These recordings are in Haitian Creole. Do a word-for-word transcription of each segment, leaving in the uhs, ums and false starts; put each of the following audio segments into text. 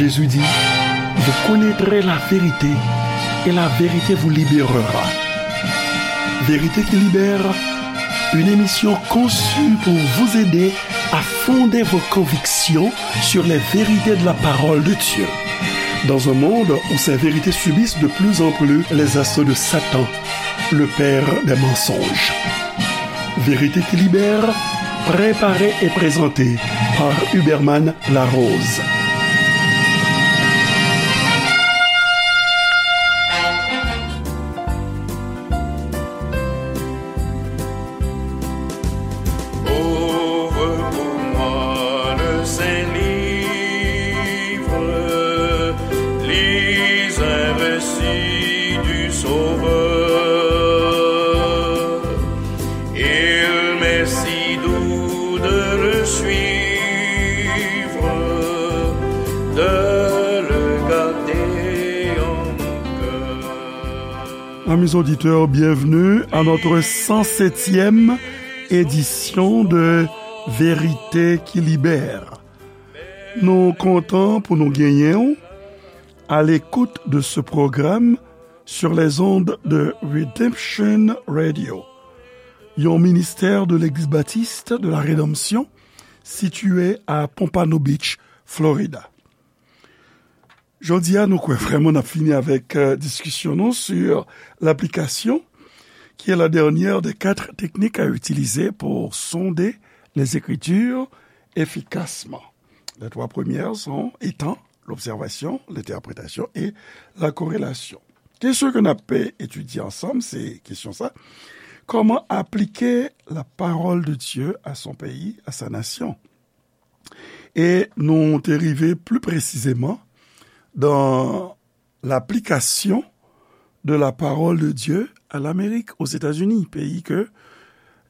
Jésus dit, vous connaîtrez la vérité et la vérité vous libérera. Vérité qui libère, une émission conçue pour vous aider à fonder vos convictions sur les vérités de la parole de Dieu. Dans un monde où ces vérités subissent de plus en plus les assauts de Satan, le père des mensonges. Vérité qui libère, préparée et présentée par Huberman Larose. Ouvre pour moi le Saint-Livre, lis un récit du Sauveur. Il m'est si doux de le suivre, de le garder en mon cœur. Amis auditeurs, bienvenue à notre cent septième édition de Vérité qui Libère. Nou kontan pou nou genyen w à l'écoute de ce programme sur les ondes de Redemption Radio, yon ministè de Legliz Batis de la Redanmsyon sitiye a Pompano Beach, Florida. Jodi a, nou kwè vrèman n ap fini avèk, euh, diskisyon nou sur l'application, qui est la dernière des quatre techniques à utiliser pour sonder les Écritures efficacement. Les trois premières sont, étant l'observation, l'interprétation et la corrélation. Kesyon ke n ap etidye ansanm, se kesyon sa, comment appliquer la parole de Dieu à son pays, à sa nation? E nou te rive pli presizeman dans l'application de la parole de Dieu à l'Amérique, aux États-Unis, peyi ke,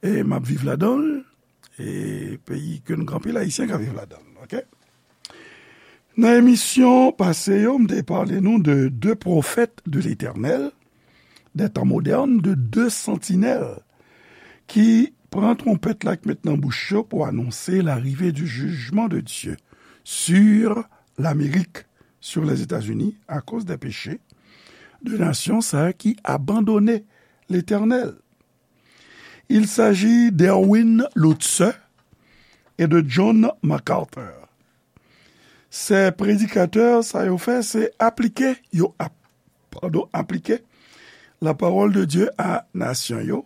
e, m ap viv ladan l, e peyi ke nou gen anpil Ayisyen k ap viv ladan l, oke? Nan emisyon pase yo, m te pale nou de de pwofèt de Letènèl, des temps modernes, de deux sentinelles ki pran twonpèt la k met nan bouch yo pou anonse l'arrivée du jugement de Dieu sur l'Amérique, sur les États-Unis, à cause des péchés de nasyon sa a ki abandone Letènèl. Il s'agit d'Erwin Lutzer et de John MacArthur. Se predikatè sa yo fè, se aplike, yo ap, padon, aplike la parole de Dieu a nasyon yo,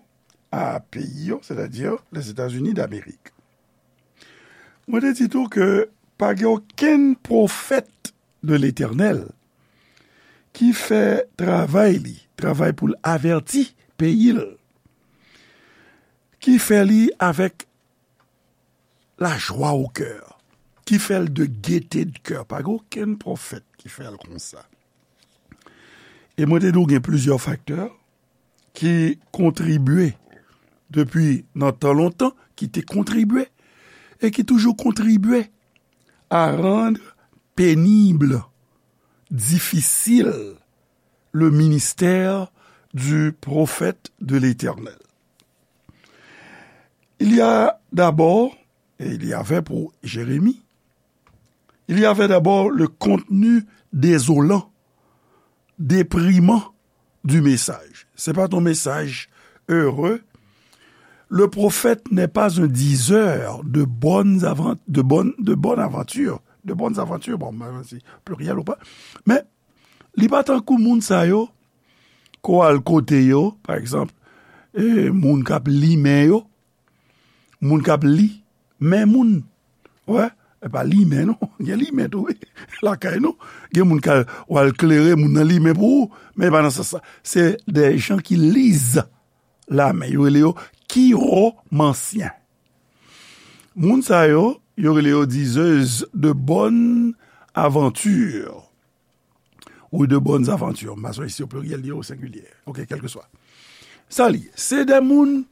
a peyi yo, sètadi Lèzetazini d'Amerik. Mwen te di tou ke pa gen okenn pwofèt de Letènèl ki fè travay li, travay pou l avèti peyi l, ki fè li avèk lajwa o kè, ki fè l de gete de kè. Pa gen okenn pwofèt ki fè l konsa. E mwen te di w gen plizyè faktè ki kontribye depi nan tan lontan, ki te kontribye e ki toujou kontribye à rendre pénible, difficile, le ministère du prophète de l'Éternel. Il y a d'abord, et il y avait pour Jérémie, il y avait d'abord le contenu désolant, déprimant du message. C'est pas ton message heureux. Le prophète n'est pas un diseur de bonnes avan-, de bonnes, de bonnes aventures, de bonnes aventures. Bon, ben, c'est pluriel ou pas. Men, li pa tankou moun sa yo, ke w al kote yo, pa egzanp, e, moun k ap limen yo, moun k ap li men moun. Wè, e pa limen non, gen limen tou, wi. Lakay nou, gen moun k al, w al klere, moun nan limen pou ou, men e pa nan sans sa. Se de jan ki liz la men, yo rele yo kiwomansyen. Moun sa yo, yo rele yo diseuses de bonnes aventures. Ou de bonnes aventures. M pa sonje si o pliryèl li o sengilyè. Oke, kèlkeswa. Sa li ye. Se de moun,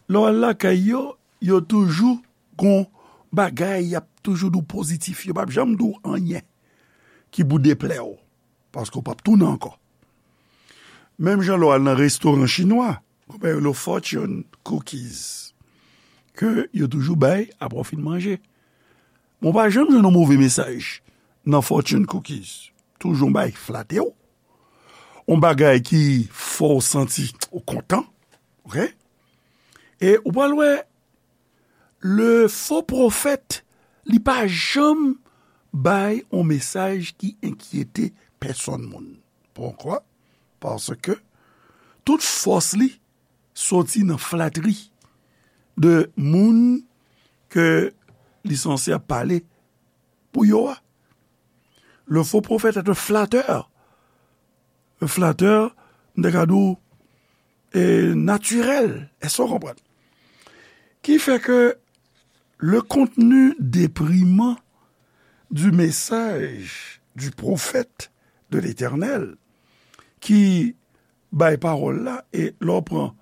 lè w al lakay yo, yo toujou gon bagay, y ap toujou di w pozitif. Yo p ap janm di w anyen ki pou deplè w. Paske w p ap tounen ankò. Menm jan lè w al nan restoran chinwa, gon bagay yo rele fortune cookies, ke yo toujou bay apre w fin manje. Men w pa janm jwenn yon move mesaj nan fortune cookies. Toujou yon bagay ki flate w, yon bagay ki fè w santi ou kontan, ok? E ou pral wè, le fo pwofèt, li pa janm bay yon mesaj ki enkyete pèsonn moun. Poukwa? Paske tout fòs li soti nan flatri de moun ke li sanse ap pale pou yo a. Le faux prophète est un flatteur. Un flatteur, m te ka di w, e, natirèl. Èske w konprann? Ki fè ke le contenu déprimant du message du prophète de l'Éternel, ki bay pawòl la, e lè w pran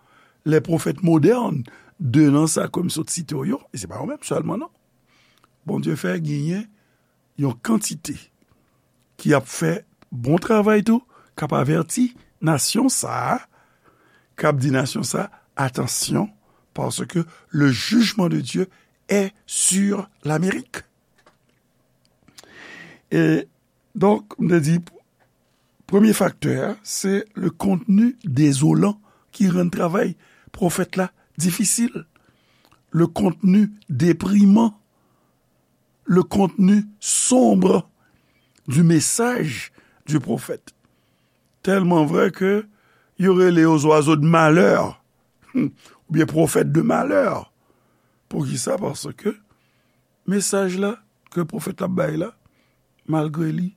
les prophètes modernes, de nan sa ke m sot site w yo, e se pa yo menm sèlman non. Bondye fè genyen yon kantite ki ap fè bon travay tou, k ap avèti nasyon sa a, k ap di nasyon sa a, atansyon, paske le jugement de Dieu est sur l'Amérique. E donk, m te di, premye faktè a, se le contenu désolant ki rann travay pwofèt la difisil. Le contenu déprimant, le contenu sombre du message du prophète. Tèlman vrè ke yo rele yo zwazo de malè, oubyen pwofèt de malè. Poukisa? Paske mesaj la ke pwofèt la ap bay la, malgre li,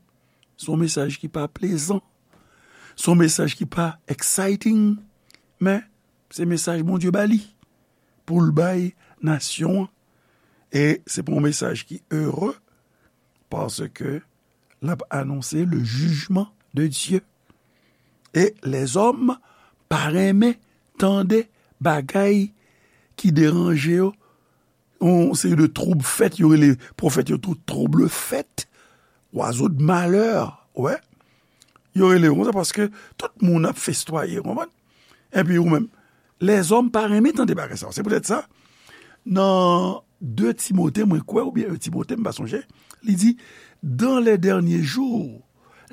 se yon mesaj ki pa plezan, se yon mesaj ki pa exciting, men se mesaj Bondye ba li pou l bay nasyon an. E se pa yon mesaj ki ere, paske l ap anonse le jugement de Dieu. E lèzòm pa renmen tande bagay ki deranje yo. Yon seri de twoub fèt, yo rele pwofèt yo tou trouble fête, oiseau de malheur, wè. Yo rele yo konsa paske tout moun ap festwaye, w konprann? Epi ou menm, lèzòm pa renmen tande bagay sa yo. Se poutèt sa, nan de Timote, mwen kwè, oubyen en Timote, m pa sonje, li di, dans les derniers jours,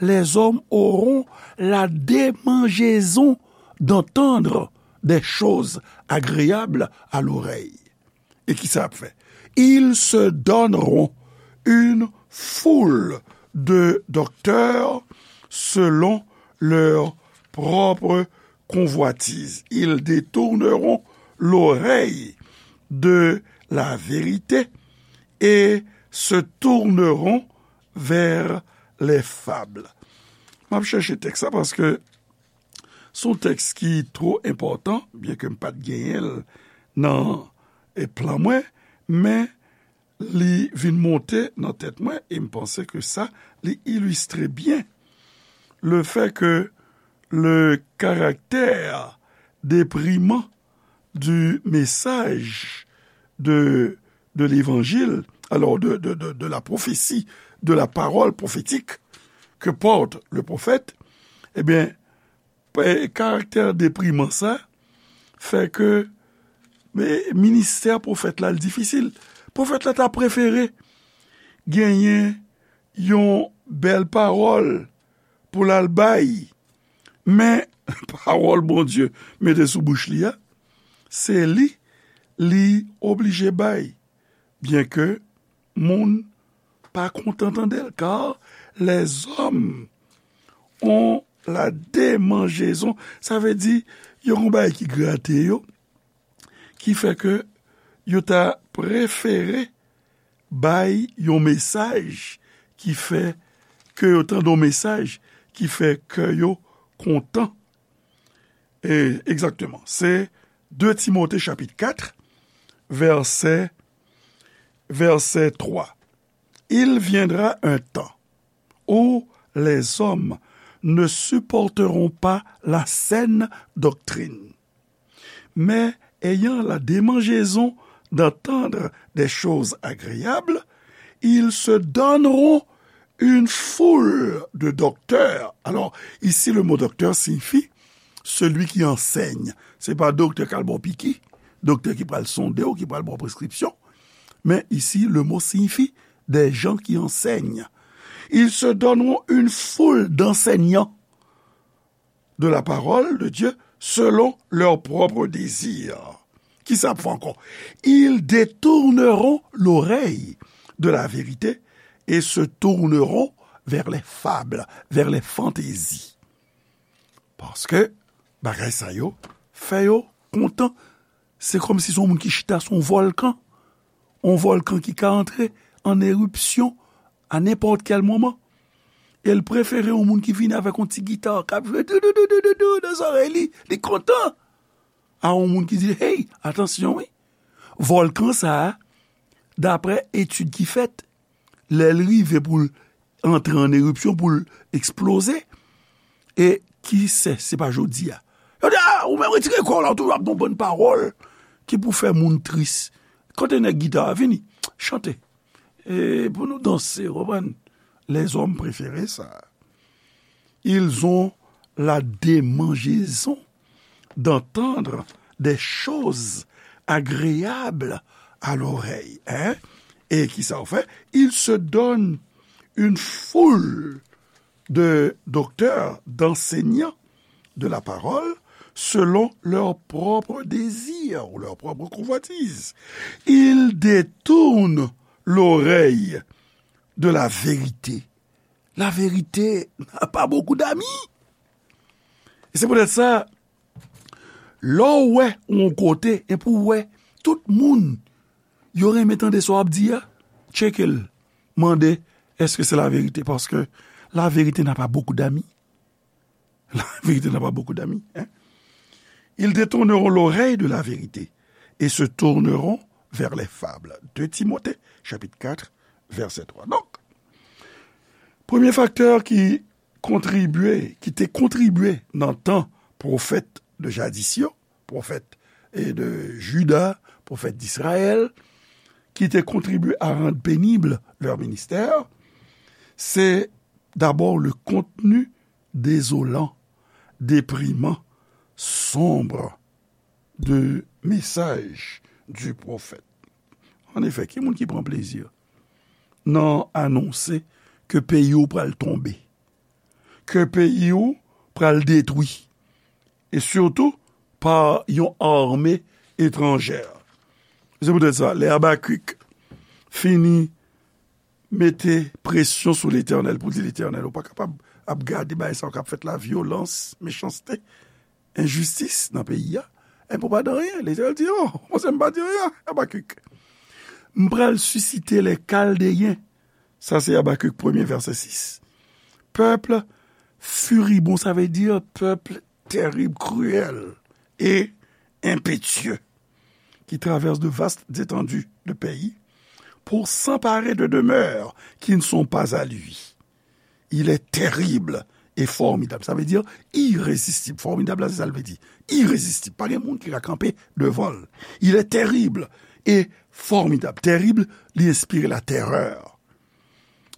les hommes auront la démangeaison d'entendre des choses agréables à l'oreille. E ki sa ap fè? Ils se donneront une foule de docteurs selon leur propre convoitise. Ils détourneront l'oreille de la vérité et se tourneront vers les fables. M ap chèche tèks la paske se yon tèks ki twò enpòtan, byenke m pa t genyen l nan, e, plan mwen, men li vin monte nan tèt mwen e m panse ke sa, li ilistre byen le fait que le caractère déprimant du message de, de l'évangile, alors de, de, de, de la prophétie, de la parole prophétique que porte le prophète, eh bien, karaktè depriman sa fè ke, men, ministè pwofèt la, l difisil. Pwofèt la ta prefere genyen yon bèl pawòl pou l al bay, men pawòl Bondye mete sou bouch li a, se li li oblije bay, byenke moun pa kontan tande l, car les hommes ont la démangeaison. Sa vle di, yo gon bagay ki grate yo, ki fè ke yo ta prefere bay yon mesaj ki fè ke yo tande yon mesaj ki fè kè yo kontan. E, egzakteman, se de Timote chapit kat, vèsè, vèsè twa. Il viendra un temps où les hommes ne supporteront pas la saine doctrine, mais ayant la démangeaison d'entendre des choses agréables, ils se donneront une foule de docteurs. Alors, ici, le mot docteur signifie celui qui enseigne. Se pa doktè k al ba w piki, doktè ki pral sonde w, ki pral ba w preskripsyon. Men isi, le mot signifie des gens qui enseignent. Ils se donneront une foule d'enseignants de la parole de Dieu selon leur propre désir. Ki sa ap fè ankò? Ils détourneront l'oreille de la vérité et se tourneront vers les fables, vers les fantaisies. Paske bagay sa yo fè yo kontan. Se kòmsi se yon moun ki chita sou yon vòlkan. Yon vòlkan ki ka antre an eripsyon a nenpòt kèl moman. E l prefere yon moun ki vini avèk yon ti gita k ap jwe dou dou dou dou dou dou nan zòrèy li. Li kontan. A yon moun ki di, hey, atansyon wi. Vòlkan sa a, daprè etid ki fèt, lè l rive pou l antre an eripsyon, pou l eksploze, e ki sè, se pa jodi a. Yo di, a, ou menm retire kò w la, ou toujou ap di yon bann pawòl ki pou fè moun tris. Kote nèg gita a? Vini, chante. E pou nou danse, w konprann? Lèzòm prefere sa. Ils ont la démangeaison d'entendre des choses agréables à l'oreille. Hein? Et qui ça fait? Ils se donnent une foule de docteurs, d'enseignants de la parole selon leur propre désir ou leur propre convoitise. Ils détournent l'oreille de la vérité. La vérité n'a pas beaucoup d'amis. E se poutèt sa, lè w wè yon kote, e pou w wè tout moun, yo renmen tande sa w ap di a, tcheke l, mande, èske se la verite? Paske la vérité n'a pas beaucoup d'amis. La vérité n'a pas beaucoup d'amis. Hein? Ils détourneront l'oreille de la vérité et se tourneront vers les fables. Deux Timothée, chapitre quatre, verset trois. Donk, premye faktè ki kontribye, ki te kontribye nan tan pwofèt de jadis yo, pwofèt e de Jida, pwofèt d'Israël, ki te kontribye à rendre pénible leur ministère, c'est d'abord le contenu désolant, déprimant, sombre de message du prophète. An efè, ki moun ki pran plezi nan anonse ke peyi w pral tonbe, ke peyi w pral detwi, e sitou pa yon ame etranjè? Se poutèt sa, lè Abakik fini mete presyon sou Letènèl pou di, Letènèl, ou pa kapab ap gade bagay sa yo k ap fèt la, vyolans, mechanste, enjistis nan peyi a, enben ou pa di anyen. Letènèl di, o, monchè, m pa di anyen, Abakik. M pral sisite lè Kaldeyen. Sa se Abakik premye, vèsè sis. Pèp firibon, sa vle di pèp tèrib, kriyèl e enpetye, qui traversent de vastes étendues de pays pour s'emparer de demeures qui ne sont pas à lui. Il est terrible et formidable. Sa vle di irezistib. Fòmidab la, se sa l vle di. Irezistib. Pa gen moun ki ka kanpe devan l. Il est terrible et formidable. Tèrib, li enspire latèrè,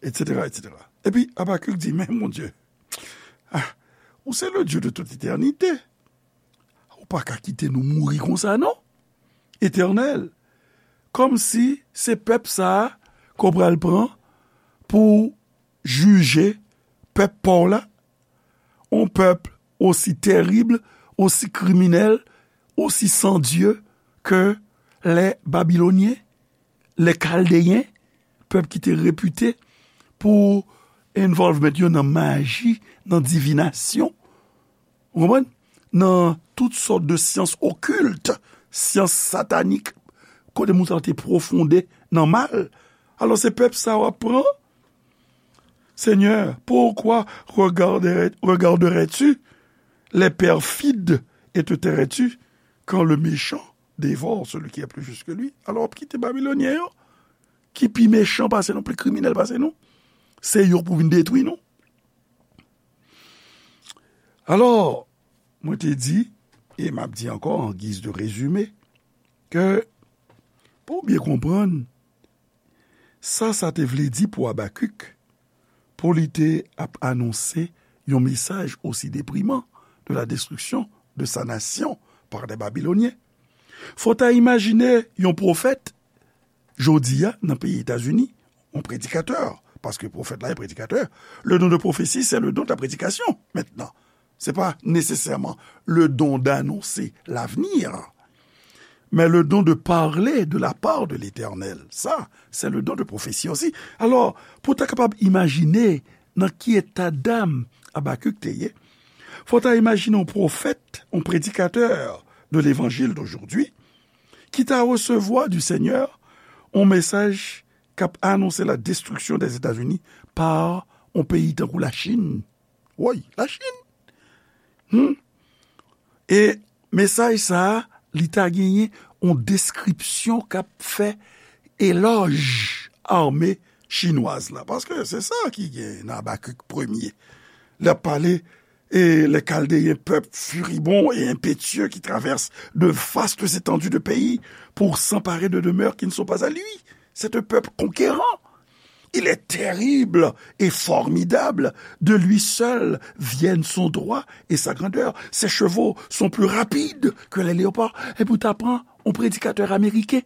et cetera, et cetera. Epi Abakik di, men Bondye, ah, ou se le Dieu de toute éternité. Ou pa ka kite nou mouri konsa, non. Etènèl. Kòmsi se pèp sa a ke w pral pran pou jije pèp pa w la, yon pèp osi tèrib, osi kriminèl, osi san Dye ke lè Babilonyen, lè Kaldeyen, pèp ki te repite pou involvement yo nan maji, nan divinasyon. Ou konprann? Nan tout sòt de syans okilt, syans satanik, kote moun sa te pwofonde nan mal. Alò, se pèp sa w ap pran? Seigneur, pourquoi regarderais-, regarderais-tu les perfides et te tairais-tu quand le méchant dévore celui qui est plus juste que lui? Alò, w ap kite Babilonyen yo, ki pi mechan pase nou, pi kriminèl pase nou, se yo pou vin detwi nou. Alò, mwen te di, e m ap di ankò an giz de rezime, ke pou w byen konprann sa sa te vle di pou Abakik, pou li te ap anonse yon mesaj osi depriman de la destruction de sa nation par des Babyloniens. Fò w ta imajine yon pwofèt, jodi a, nan peyi Etazini, yon predikatè, Paske pwofèt la e predikatè. Le don de prophétie, c'est le don de la prédication, maintenant. C'est pas nécessairement le don d'annoncer l'avenir, mais le don de parler de la part de l'Éternel. Ça, c'est le don de prophétie aussi. Alò, pou w ta kapab imajine nan ki eta dam Abakik te ye, fò w ta imajine yon pwofèt, yon predikatè de l'évangile d'aujourd'hui, ki ta resevwa du Seigneur yon mesaj k ap anonse la destruction des États-Unis par yon peyi tankou Lachin. Woy, Lachin! Hmm. E mesaj sa a, li ta genyen yon deskripsyon k ap fè elòj ame chinwaz la. Paske se sa ki gen nan Abakik premye. L ap pale, et les Chaldéens, peuple furibond et impétueux qui traverse de vastes étendues de pays pour s'emparer de demeures qui ne sont pas à lui. C'est un peuple conquérant. Il est terrible et formidable. De lui seul viennent son droit et sa grandeur. Ses chevaux sont plus rapides que les léopards. Epi w ta pran yon predikatè ameriken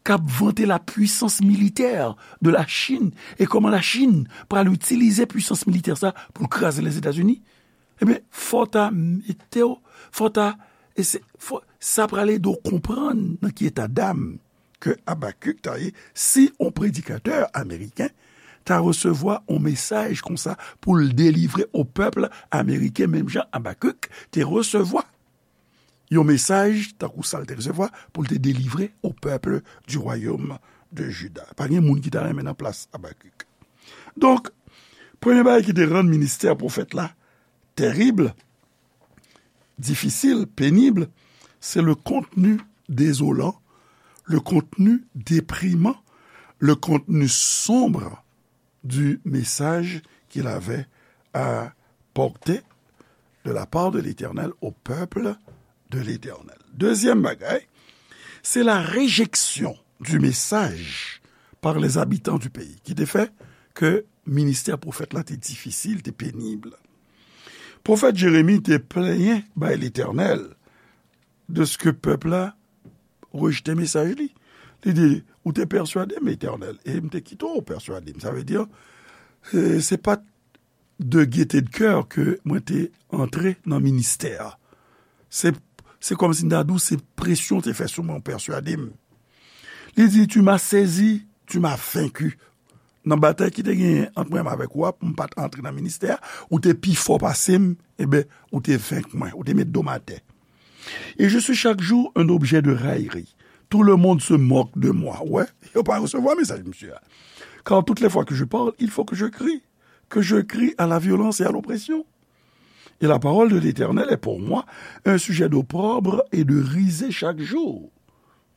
k ap vante la puissance militaire de la Chine e kòman la Chin pral itilize pwisans militè sa pou l kraze Lèzetazini. Ebyen, fò w ta mete w, fò w ta, e se, fò, sa pral ede w konprann nan ki eta dam ke Abakik ta ye si yon predikatè ameriken ta resevwa yon mesaj konsa pou l delivre o pèp ameriken, menm jan Abakik te resevwa yon mesaj tankou sa l te resevwa pou l te delivre o pèp du royaume de Juda. Pa gen moun ki ta renmen nan plas Abakik. Donk, premye bagay ki te rann ministè pwofèt la tèrib, difisil, penib, se le contenu désolant, le contenu déprimant, le contenu sombre du message qu'il avait à porter de la part de l'Éternel au peuple de l'Éternel. Dezyèm bagay, se la réjection du message par les habitants du pays, ki te fè ke ministè pwofèt la te difisil, te penib. Pwofèt Jeremi te plenyen bay Letènèl de ce que pèp la rejte mesaj li. Li di, ou te pèswade m, Letènèl, e m te kite w pèswade m. Sa vle di, e, se pa t de gaieté de cœur ke mwen te antre nan ministè a. Se, se kòmsi m ta di w, se presyon te fè sou mwen, pèswade m. Li di, tu m'as saisi, tu m'as vaincu. Nan batay ki te genyen ant mwen avèk ou a, pou m pa t antre nan ministè a, ou te pi fò pase m, eben, ou te venk mwen, ou te met do m atè. Et je suis chaque jour un objet de raillerie. Tout le monde se moque de moi. Wè, yo pa resevwa mesaj misye a. Car toutes les fois que je parle, il faut que je crie, que je crie à la violence et à l'oppression. Et la parole de l'Éternel est pour moi un sujet d'opprobre et de risée chaque jour.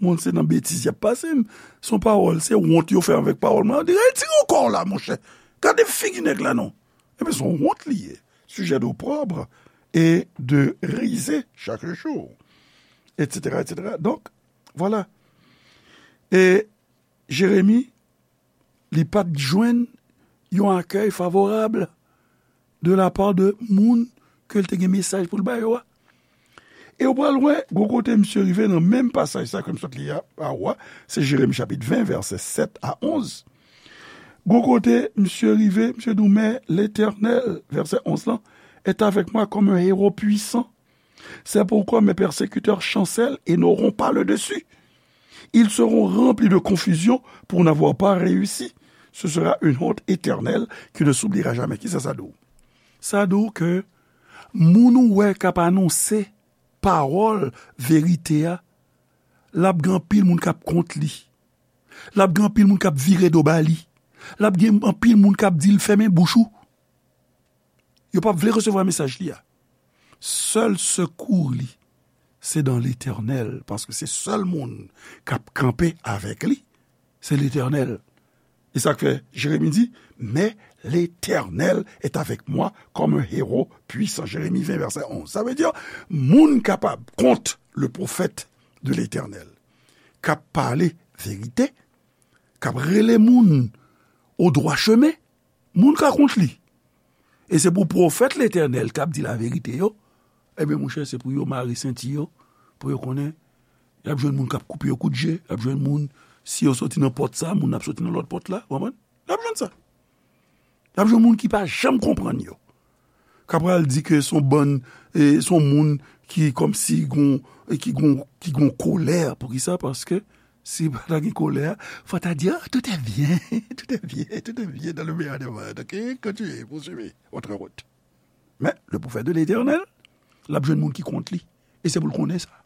Moun se nan betiz y ap pase m. Se yon pawòl, se wont yo fè avèk pawòl mwen. Yo di, retire kò w la, monchè. Gade figi nèg la non. Ebyen, se yon wont li ye. Sujet d'opprobre et de risée chaque jour, et cetera, et cetera. Donk, vwala. E Jeremi, li pa t jwenn yon akèy favorab de la part de moun ke l te gen mesaj pou l ba yo a. E w pral wè, gwo kote misye rive nan menm pasaj sa ke m sot li a, a ou a, se Jeremi chapit ven, vèsè sèt a onz. Gwo kote misye rive, misye di w, mais l'Éternel, vèsè onz lan, est avec moi comme un héros puissant. C'est pourquoi mes persécuteurs chancellent et n'auront pas le dessus. Ils seront remplis de confusion pour n'avoir pas réussi. Ce sera une honte éternelle qui ne s'oubliera jamais. Kisa sa di w? Sa di w ke moun ou wè k ap anonse pawòl verite a, l ap gen anpil moun k ap kont li. L ap gen anpil moun k ap vire do ba li. L ap gen anpil moun k ap di l fèmen bouch ou. Yo p ap vle resevwa mesaj li a. Sèl sekou li, se dans l'Éternel, paske se sèl moun k ap kanpe avèk li, se Letènèl. E sa k fè Jeremi di, mais l'Éternel est avec moi comme un héros puissant. Jeremi ven, vèsè onz. Sa vle di, moun kapab kont le prophète de l'Éternel, k ap pale verite, k ap rele moun au droit chemin, moun ka kont li. E se pou pwofèt Letènèl k ap di laverite yo, ebyen, monchè, se pou yo mare senti yo, pou yo konnen, y ap jwenn moun k ap koupe yo kout je, y ap jwenn moun, si yo soti nan pòt sa, moun ap soti nan lòt pòt la, w konprann? Y ap jwenn sa. L ap jwenn moun ki pa janm konprann yo. K ap pral di ke se yon bann, e, se yon moun ki kòmsi gon, e, ki gon, ki gon kolè. Poukisa? Paske si pa ta gen kolè, fò ta di, ah, tout est bien, tout est bien, tout est bien dans le meilleur des mondes. Ok, continuez, poursuivez votre route. Men, le prophète de l'Éternel, l ap jwenn moun ki kont li. E se pou l konnen sa.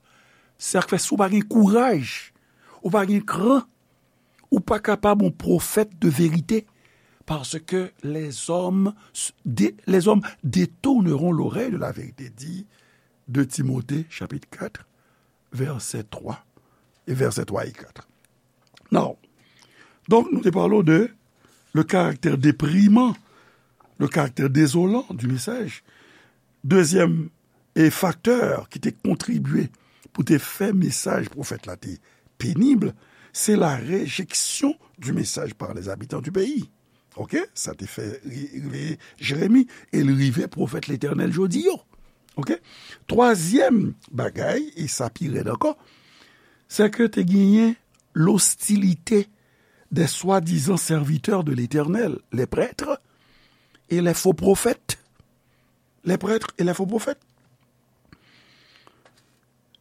Sa k fè, si w pa gen kouraj, ou pa gen kran, ou pa kapab yon pwofèt de verite, parce que les hommes, dé- les hommes détourneront l'oreille de la vérité, dit deux Timothée, chapitre quatre, verset trois, et verset trois et quatre. Now, donk, nou te pale de le caractère déprimant, le caractère désolant du message. Dezyèm, e faktè ki te kontribye pou te fè mesaj pwofèt la te penib, se la rejection du message par les habitants du pays. Ok? Sa te fè ri- rive Jeremi, e l rive pwofèt Letènèl jodi yo. Ok? Twazyèm bagay, e sa pi rèd ankò, se ke te genyen l'hostilité des soi-disant serviteurs de l'Éternel, les prêtres et les faux prophètes. Les prêtres et les faux prophètes.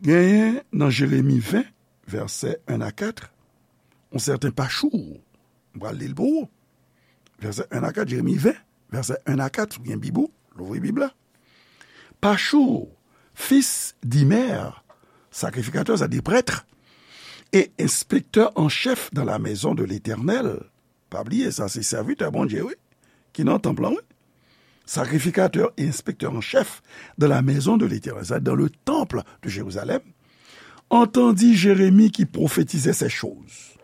Genyen nan Jeremi ven, vèsè en a kat, yon sèten Pachour. M pral li l pou ou. Vèsè en a kat, Jeremi ven, vèsè en a kat, si w gen Bib ou, louvri Bib la. Pachour, fils d'Imer, sacrificateur, c'est-à-dire prêtre, et inspecteur en chef dans la maison de l'Éternel. Pa bliye, sa se sèvitè Bondye, wi, ki nan tanp lan, wi. Sacrificateur et inspecteur en chef de la maison de l'Éternel, c'est dans le temple de Jérusalem, entendit Jérémie qui prophétisait ces choses.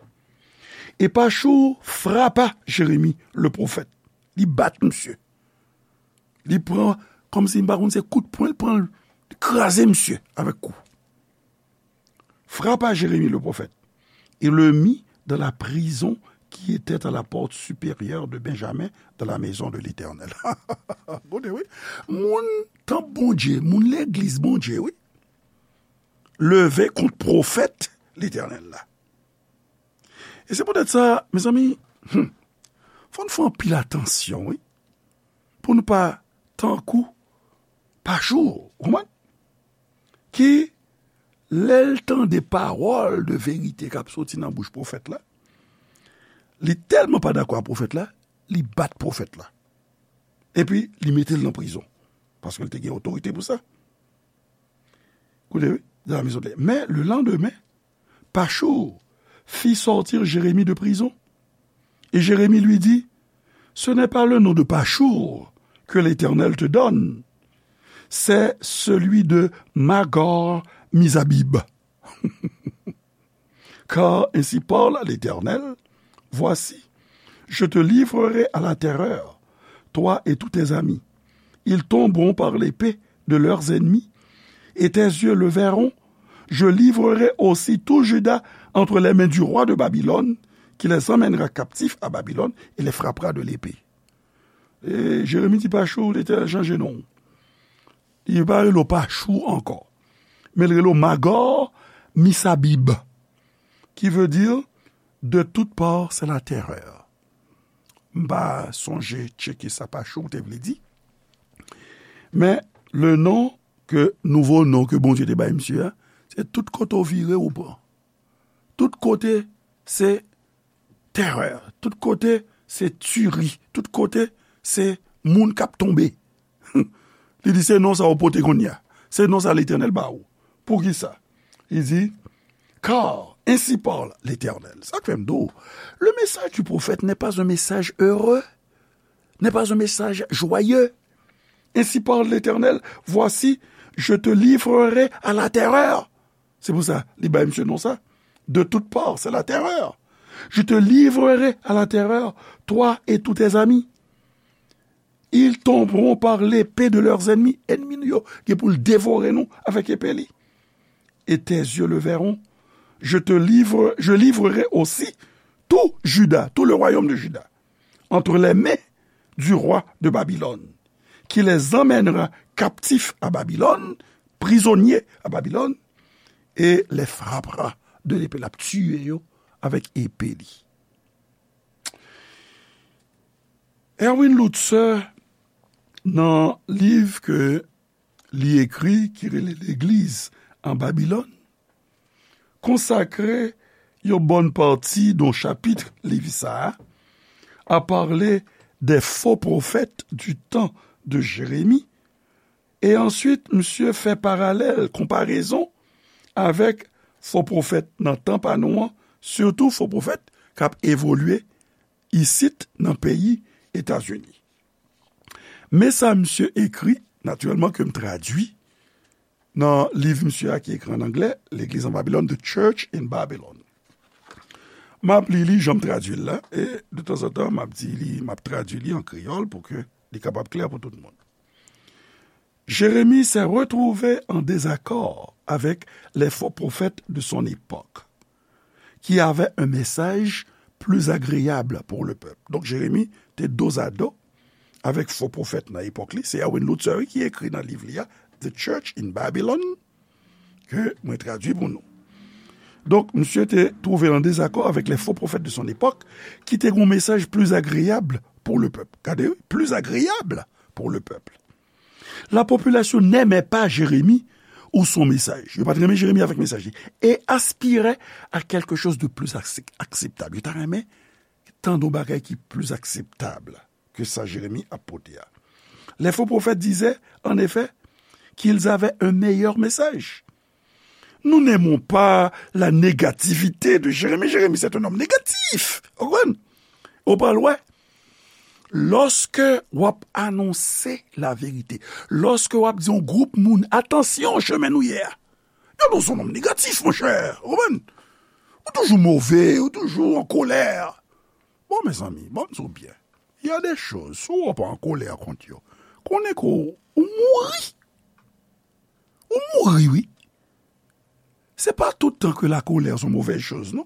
Et Pachou frappa Jérémie, le prophète. Li bat misye. Li pran, kòmsi m pa konn se kout pwen, li pran, li kraze misye avèk kou. Frappa Jérémie le prophète et le mit dans la prison qui était à la porte supérieure de Benjamin, dans la maison de l'Éternel. Gade, wi. Moun tanp Bondye, moun legliz Bondye, wi, leve kont pwofèt Letènèl la. E se poutèt sa, mezanmi, hmm, fò n fè anpil atansyon, wi, pou nou pa tankou Pachou, ou konprann? Ki, lè l tande pawòl de verite k ap soti nan bouch pwofèt la, li tèlman pa dakò ak pwofèt la, li bat pwofèt la. Epi, li mete l nan prizon. Paske l te gen otorite pou sa. Koute, wi, dans la maison de l'Éternel. Mais le lendemain, Pachou fit sortir Jérémie de prison. Et Jérémie lui dit, ce n'est pas le nom de Pachou que l'Éternel te donne, c'est celui de Magor Mizabib. Car ainsi parle l'Éternel, voici, je te livrerai à la terreur, toi et tous tes amis. Ils tomberont par l'épée de leurs ennemis, et tes yeux le verront. Je livrerai aussi tout Juda entre les mains du roi de Babylone, qui les emmènera captifs à Babylone et les frappera de l'épée. E Jeremi di Pachou, Letènèl chanje non. Li pa rele w Pachou ankò. Men l rele w Magor Misabib, qui veut dire de toute part c'est la terreur. M pa sonje tcheke sa Pachou te vle di. Men le non ke, nouvo non ke Bondye te bay misye a, se tout kote w vire ou pran. Tout kote se terè, tout kote se tiri, tout kote se moun k ap tonbe. Li di se non sa w pote kounye a. Se non sa Letènèl ba ou. Poukisa? Li di, car ainsi parle l'Éternel. Sa k fè m di w, le message du prophète n'est pas un message heureux, n'est pas un message joyeux. Ainsi parle l'Éternel, voici, je te livrerai à la terreur. Se pou sa, li bay misye non sa. De toute part, c'est la terreur. Je te livrerai à la terreur, toi et tous tes amis. Ils tomberont par l'épée de leurs ennemis. Ènmi nou yo gen pou l devore nou avèk epe li. Et tes yeux le verront. Je te livre, je livrerai aussi tout Juda, tout le royaume de Juda, entre les mains du roi de Babylone, qui les emmènera captifs à Babylone, prisonniers à Babylone, et les frappera de l'épée. L ap tiye yo avèk epe li. Erwin Lutzer, nan liv ke li ekri ki rele Legliz an Babilòn, konsakre yon bòn pati nan chapit liv sa a, à parler des faux prophètes du temps de Jérémie, e answit, misye fè paralèl, konparezon avèk fo pwofèt nan tan pa nou an, sitou fo pwofèt k ap evolye isit nan peyi Etazini. Men sa misye ekri, natirèlman ke m tradui nan liv misye a ki ekri an anglè, Legliz an Babilòn, The Church in Babylon. M ap li li jan m tradui l la, e de tanzantan, m ap di li, m ap tradui li an kreyòl pou ke li kapab klè pou tout moun. Jérémie s'est retrouvé en désaccord avec les faux prophètes de son époque, qui avaient un message plus agréable pour le peuple. Donk, Jeremi te dozado avèk fo pwofèt nan epòk li. Se Erwin Lutzer ki ekri nan liv li a, The Church in Babylon, ke mwen tradui pou nou. Donk, misye te twouve l an dezakò avèk les faux prophètes de son époque, ki te gen yon mesaj plus agréable pour le peuple. Gade, wi, plus agréable pour le peuple. La population n'aimait pas Jérémie ou son message. Yo pa t renmen Jeremi avèk mesaj li. Et aspirait à quelque chose de plus ac- acceptable. Yo ta renmen tande yon bagay ki plis akseptab ke sa Jeremi ap pote a. Les faux prophètes disaient, en effet, qu'ils avaient un meilleur message. Nous n'aimons pas la négativité de Jérémie. Jérémie, c'est un homme négatif. Ou konprann? Ou pral wè, lòske w ap anonse laverite, lòske w ap di yon gwoup moun, "Atansyon, chemen nou ye a." Yo di w se yon nonm negatif, monchè. Ou konprann? Ou toujou move, ou toujou an kolè. Bon, mezanmi, bon, m di w byen. Il y a des choses, si w pa an kolè kont yo, konnen ke w, ou mouri. Ou mouri, wi. Se pa tout tan ke la colère se yon movèz choz, non.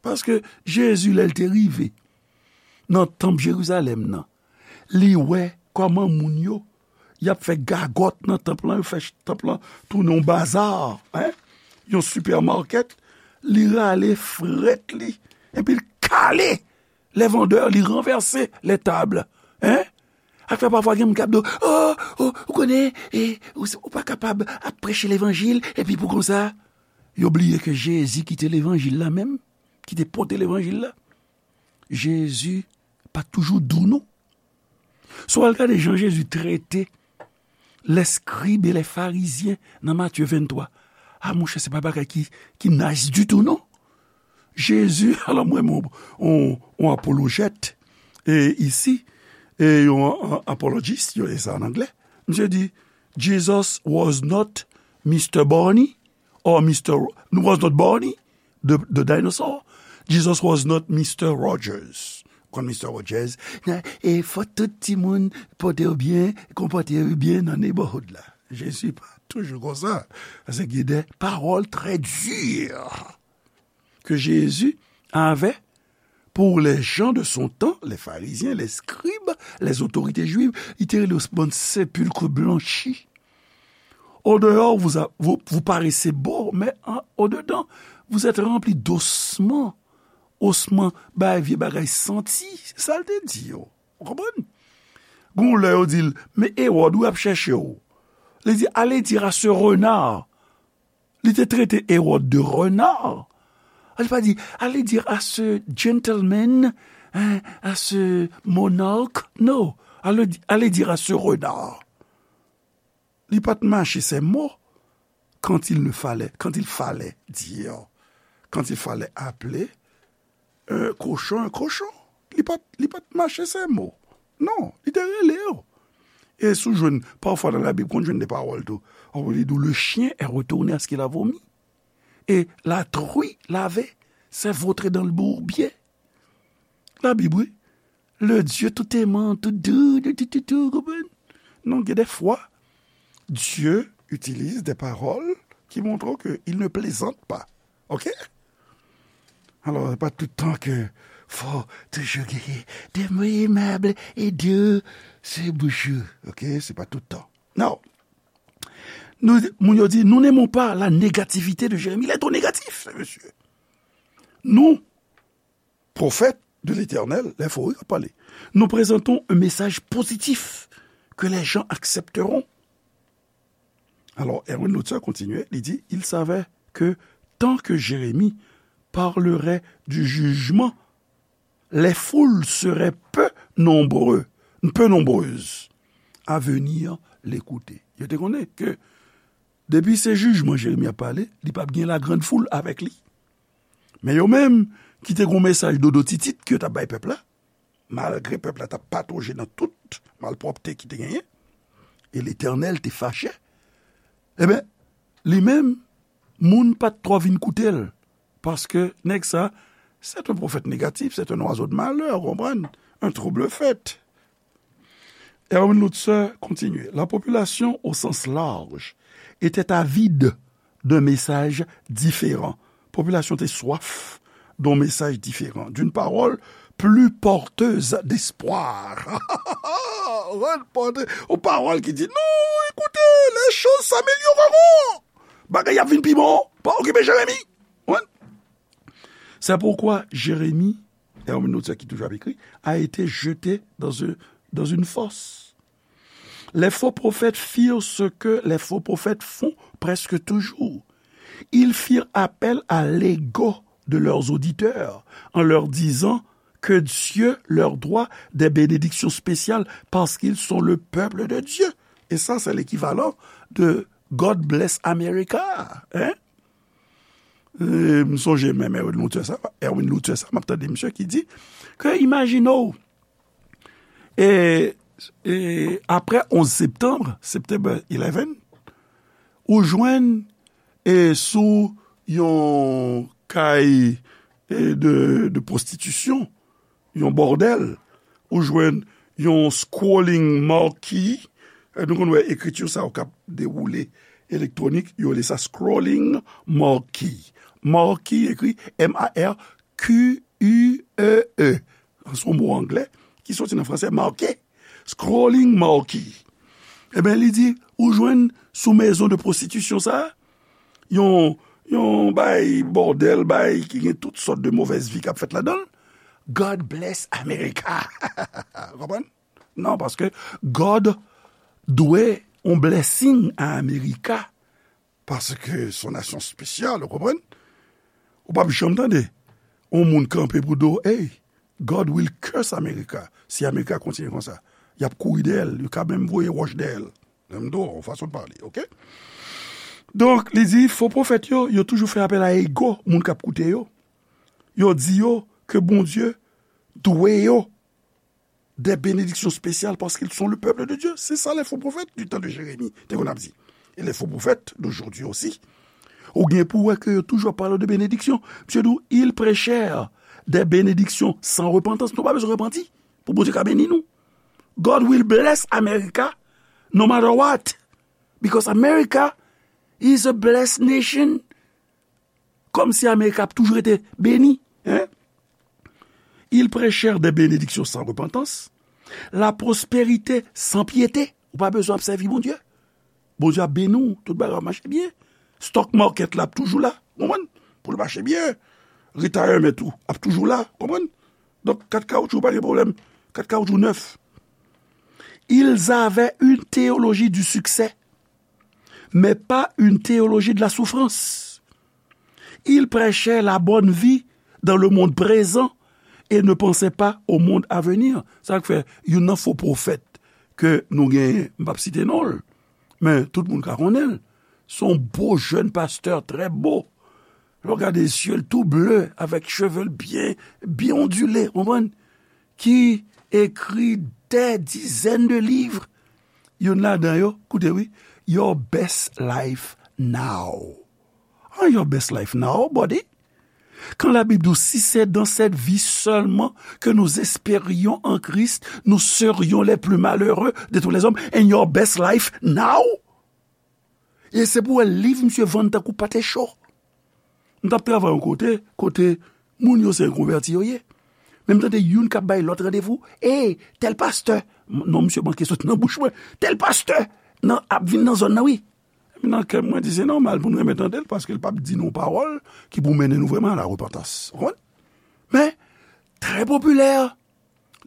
Paske Jezi, lè l te rive nan tanp Jerizalèm nan, li wè kòman moun yo, y ap fè gagòt nan tanp lan, yo fè ch- tanp lan tounen yon baza, en, yon sipèmakèt. Li rale frèt li, epi l kale les vendeurs, li ranvèse les tables, en. Ak fè pafwa gen moun k ap di w, "Oh, oh, ou konnen, e, ou, ou pa kapab ap preche levanjil, epi pou konsa." Yo bliye ke Jezi ki te levanjil la menm, ki te pote levanjil la. Jezi pa t toujou dou, non. Si w al gade jan Jezi trete lèskrib e lèfarizyen nan Matye venntwa, a, monchè, se pa bagay ki, ki nice ditou, non. Jezi, alò, mwen, mwen, on, on apolojèt, e isi, e yon, on apologist, yo, e sa an anglè. Misye di, "Jesus was not Mister Barney or Mister Ro-, was not Barney, the, the dinosaur. Jesus was not Mister Rogers." Konn Mister Rogers? Nan, e fò tout timoun pote yo byen, konpòte yo byen nan neighborhood la. Jezi pa toujou konsa. Paske gen de pawòl trè di ke Jezi avè pour les gens de son temps, les pharisiens, les scribes, les autorités juives, li te rele yo bann sepilk blanchi. Au dehors, vous, a- vous, vous paraissez beaux, mais en- au dedans, vous êtes remplis d'ossements. Osman, bay vye bagay santi, se sa l te di yo. Ou konprann? Gon lè yo di l, "Men Ewòd, wi, ap chèche w." Li di, "Allez dire à ce renard." Li te trete Ewòd de renard. Li pa di, "Allez dire à ce gentleman, hein, à ce monarque." Non, allez, di- allez dire à ce renard. Li pa t mache ces mots quand il ne fallait, quand il fallait dire, quand il fallait appeler un cochon un cochon. Li pa t, li pa t mache ces mots. Non, li te rele yo. E si w jwenn, pafwa nan Labib, konn jwenn de pawòl tou. Ou li di w, "Le chien est retourné à ce qu'il a vomi. Et la truie lavée s'est vautrée dans le bourbier." Labib, wi. Le Dieu tout aimant, tout doux, tout, tout, tout, tout, konprann? Non, gen de fwa, Dieu utilise des paroles qui montrent qu'il ne plaisante pas. Ok? Alò, se pa tout tan ke fò toujou genyen de mo aimable et doux sou bouch ou. Ok? Se pa tout tan. Non. Nou, moun yo di, "Nous n'aimons pas la négativité de Jérémie." Il est trop négatif, ce monsieur. Nou, pwofèt, de l'Éternel, les faux, wi, k ap pale. Nous présentons un message positif que les gens accepteront. Alors, Erwin Lutzer continue, il dit, il savait que tant que Jérémie parlerait du jugement, les foules seraient peu nombreux, peu nombreuses à venir l'écouter. Yo te konnen ke depi se jijman Jeremi ap pale, li p ap gen la grande foule avèk li. Men yo menm ki te gon mesaj dodo titit ke yo t ap bay pèp la, malgre pèp la t ap patoje nan tout malpwòpte ki te genyen, e Letènèl te fache, ebyen, li menm, moun pa t twò vin koute l, paske nèg sa, c'est un prophète négatif, c'est un oiseau de malheur, ou konprann? Un trouble-fête. Erwin Lutzer continue. La population, au sens large, était avide d'un message différent. Popilasyon te swaf d'un message différent, d'une parole plus porteuse d'espoir. Yon pawòl ki di, non, écoutez, les choses s'amélioreront. Bagay ap vin pi bon. Pa okipe Jeremi. Wi. C'est pourquoi Jérémie, Erwin Lutzer ki toujou ap ekri, a été jeté dans un, dans une fosse. Les faux prophètes firent ce que les faux prophètes font presque toujours. Ils firent appel à l'ego de leurs auditeurs en leur disant que Dieu leur doit des bénédictions spéciales parce qu'ils sont le peuple de Dieu. Et ça, c'est l'équivalent de God bless America. Hein? E, m sonje menm Erwin Lutzer sa, Erwin Lutzer sa, m ap tande misye ki di ke imajine w, e, e, apre onz septanm, September eleven, ou jwenn, e, sou yon kay, e, de, de pwostitisyon, yon bòdèl, ou jwenn yon scrolling marquee. E, nou konn wè ekriti sa yo k ap dewoule elektwonik, yo rele sa scrolling marquee. Marquee ekri M A R Q U E E. Se yon mo anglè ki soti nan franse, marqué. Scrolling marquee. Ebyen, li di, ou jwenn sou maison de prostitution sa, yon, yon bay bòdèl, bay ki gen tout sòt de movèz vi k ap fèt ladan l. God bless America. Konprann? Non, paske God dwe yon blessing a America, paske se yon nasyon espesyal, ou konprann? Ou p ap janm tande yon moun kanpe pou di w, hey, God will curse America. Si America kontinye konsa, y ap kouri dèyè l, yo ka menm voye wòch dèyè l. Menm do, yon fason de pale, oke? Donk, li di, fo pwofèt yo, yo toujou fè apèl a ego moun k ap koute yo. Yo di yo ke Bondye dwe yo des bénédictions spéciales parce qu'ils sont le peuple de Dieu. C'est ça les faux prophètes du temps de Jérémie, te konn ap di. Et les faux prophètes d'aujourd'hui aussi. Ou gen pou wè ke yo toujou ap pale de benediksyon. Misye di w, ils prêchèrent des bénédictions sans repentance. Nou pa bezwen repanti pou Bondye ka beni nou. God will bless America no matter what. Because America is a blessed nation. Kòmsi Amerik ap toujou rete beni, hein? Ils prêchèrent des bénédictions sans repentance, la prospérité sans piété. Ou pa bezwen ap sèvi Bondye. Bondye ap beni w, tout bagay ap mache byen. Stock market la ap toujou la, konprann? Pou l mache byen. Retirement ou ap toujou la, konprann? Donk, kat kawoutchou pa gen pwoblèm. Kat kawoutchou nèf. Ils avaient une théologie du succès, mais pas une théologie de la souffrance. Ils prêchaient la bonne vie dans le monde présent et ne pensaient pas au monde à venir. Sa k fè, youn nan fo pwofèt ke nou genyen, m p ap site non l, men tout moun ka konnen l. Se yon bo jèn pastè, trè bo. Lè w gade zye l tou ble, avèk cheve l byen, byen ondile, konprann? Ki ekri des dizaines de livres. Youn ladan yo, koute wi, Your Best Life Now. Ah, Your Best Life Now, buddy. Quand la Bible dit, si c'est dans cette vie seulement que nous espérions en Christ, nous serions les plus malheureux de tous les hommes. And your best life now. E se pou wè liv misye vann tankou pate cho. M t ap travay yon kote, kote moun yo se konvèti yo ye. Men m tande youn k ap bay lòt randevou, ey, tèl pastè, non, misye manke soti nan bouch mwen, tèl pastè nan, ap vin nan zòn nan, wi. Epi nan kè m, mwen di, se nòmal pou n renmen tande l, paske l p ap di nou pawòl ki pou mennen nou vrèman a la repantans. Ou konprann? Men, Enpopilè,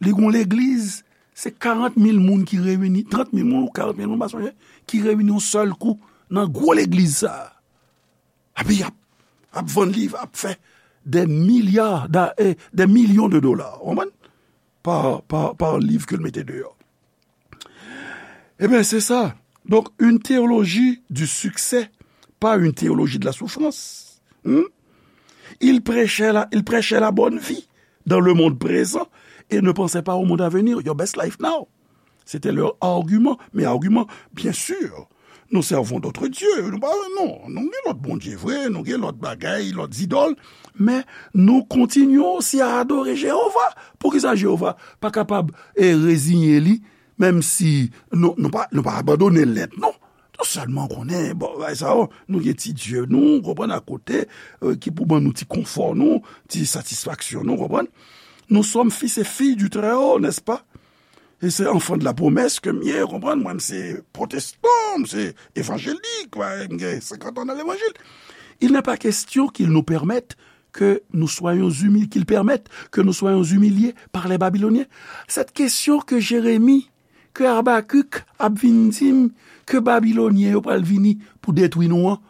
li gon legliz, se karant mil moun ki reyini, trant mil moun ou karant mil moun, m pa sonje, ki reyini yon sèl kou nan gwo legliz sa a. Epi y ap, ap vann liv, ap fè des milliards, da- eh, des millions de dollars, w konprann? Pa, pa, pa liv ke l mete deyò. Ebyen, se sa. Donc, une théologie du succès, pas une théologie de la souffrance. Hmm? Ils prêchaient la, ils prêchaient la bonne vie dans le monde présent et ne pensaient pas au monde à venir, your best life now. C'était leur argument. Mais argument, bien sûr, nous servons d'autres dieux. Nou pa, non, nou gen lòt bondye vre, nou gen lòt bagay, lòt zidòl, men nou kontinye osi a adore Jewova. Poukisa Jewova pa kapab e reziye li, menm si nou, nou pa, nou pa abandone l nèt, non. Nou sèlman konnen, bon, bagay sa yo, nou gen ti dye nou, konprann, akote, euh, ki pou ban nou ti konfò nou, ti satisfaksyon nou, konprann. Nous sommes fils et filles du Très-Haut, n'est-ce pas? E se enfant de la promesse ke m ye, konprann, mwen, m se pwotestan, m se evanjelik, m gen senkant an nan levanjil. Il n'est pas question qu'ils nous permettent que nous soyons humiliés, qu'ils permettent que nous soyons humiliés par les Babyloniens. Cette question que Jérémie, que Habakuk ap vin di m, ke Babilonyen yo pral vini pou detwi nou an,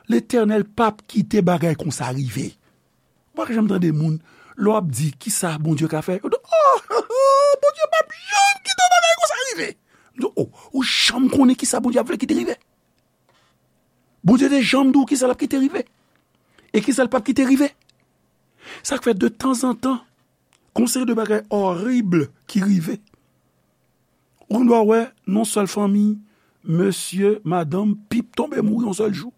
Letènèl p ap kite bagay konsa rive. Ou pa janm tande moun, lè w ap di, "Kisa Bondye ka fè?" Yo di, "Oh, Bondye p ap janm kite bagay konsa rive." M di, "Oh, ou janm konnen kisa Bondye ap vle kite rive?" Bondye te janm di w kisa l ap kite rive. E kisa l p ap kite rive. Sa k fè de tanzantan, gon seri de bagay orib ki rive. Ou gen dwa wè, nan sèl fanmi, mesye, madanm, pip tonbe mouri yon sèl jou.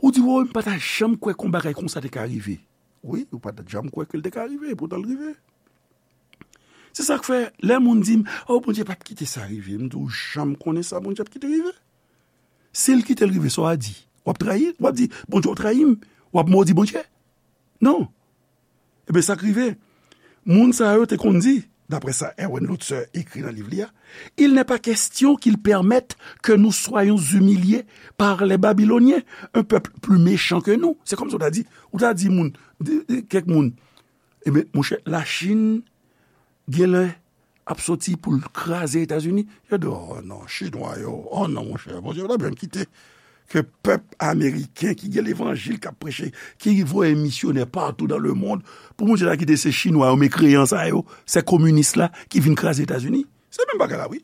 Ou di, "Woy, m pa ta janm kwè kon bagay konsa te ka rive." Wi, ou pa ta janm kwè ke l te ka rive, epoutan l rive. Se sa k fè, lè moun di m, "Oh, Bondye p ap kite sa rive," m di, "Ou janm konnen sa Bondye ap kite rive?" Si l kite l rive, sa w a di? W ap trayi? W ap di, "Bondye, w trayi m"? W ap modi Bondye? Non. Ebyen, sa k rive, moun sa yo te konn di, daprè sa Erwin Lutzer ekri nan liv li a, "Il n'est pas question qu'ils permettent que nous soyons humiliés par les Babyloniens, un peuple plus méchant que nous." Se kòmsi w ta di, ou ta di moun, di, di kèk moun, "Ebyen, monchè, Lachin genlè ap soti pou l kraze Etazini." Yo di, "Oh non, Chinwa yo, oh non, monchè, Bondye pa t ap janm kite ke pèp ameriken ki gen levanjil, k ap preche, ki voye misyonè partout dans le monde, pou Bondye ta kite se Chinwa yo, mekreyan sa yo, se kominis la ki vin kraze Etazini." Se menm bagay la, wi.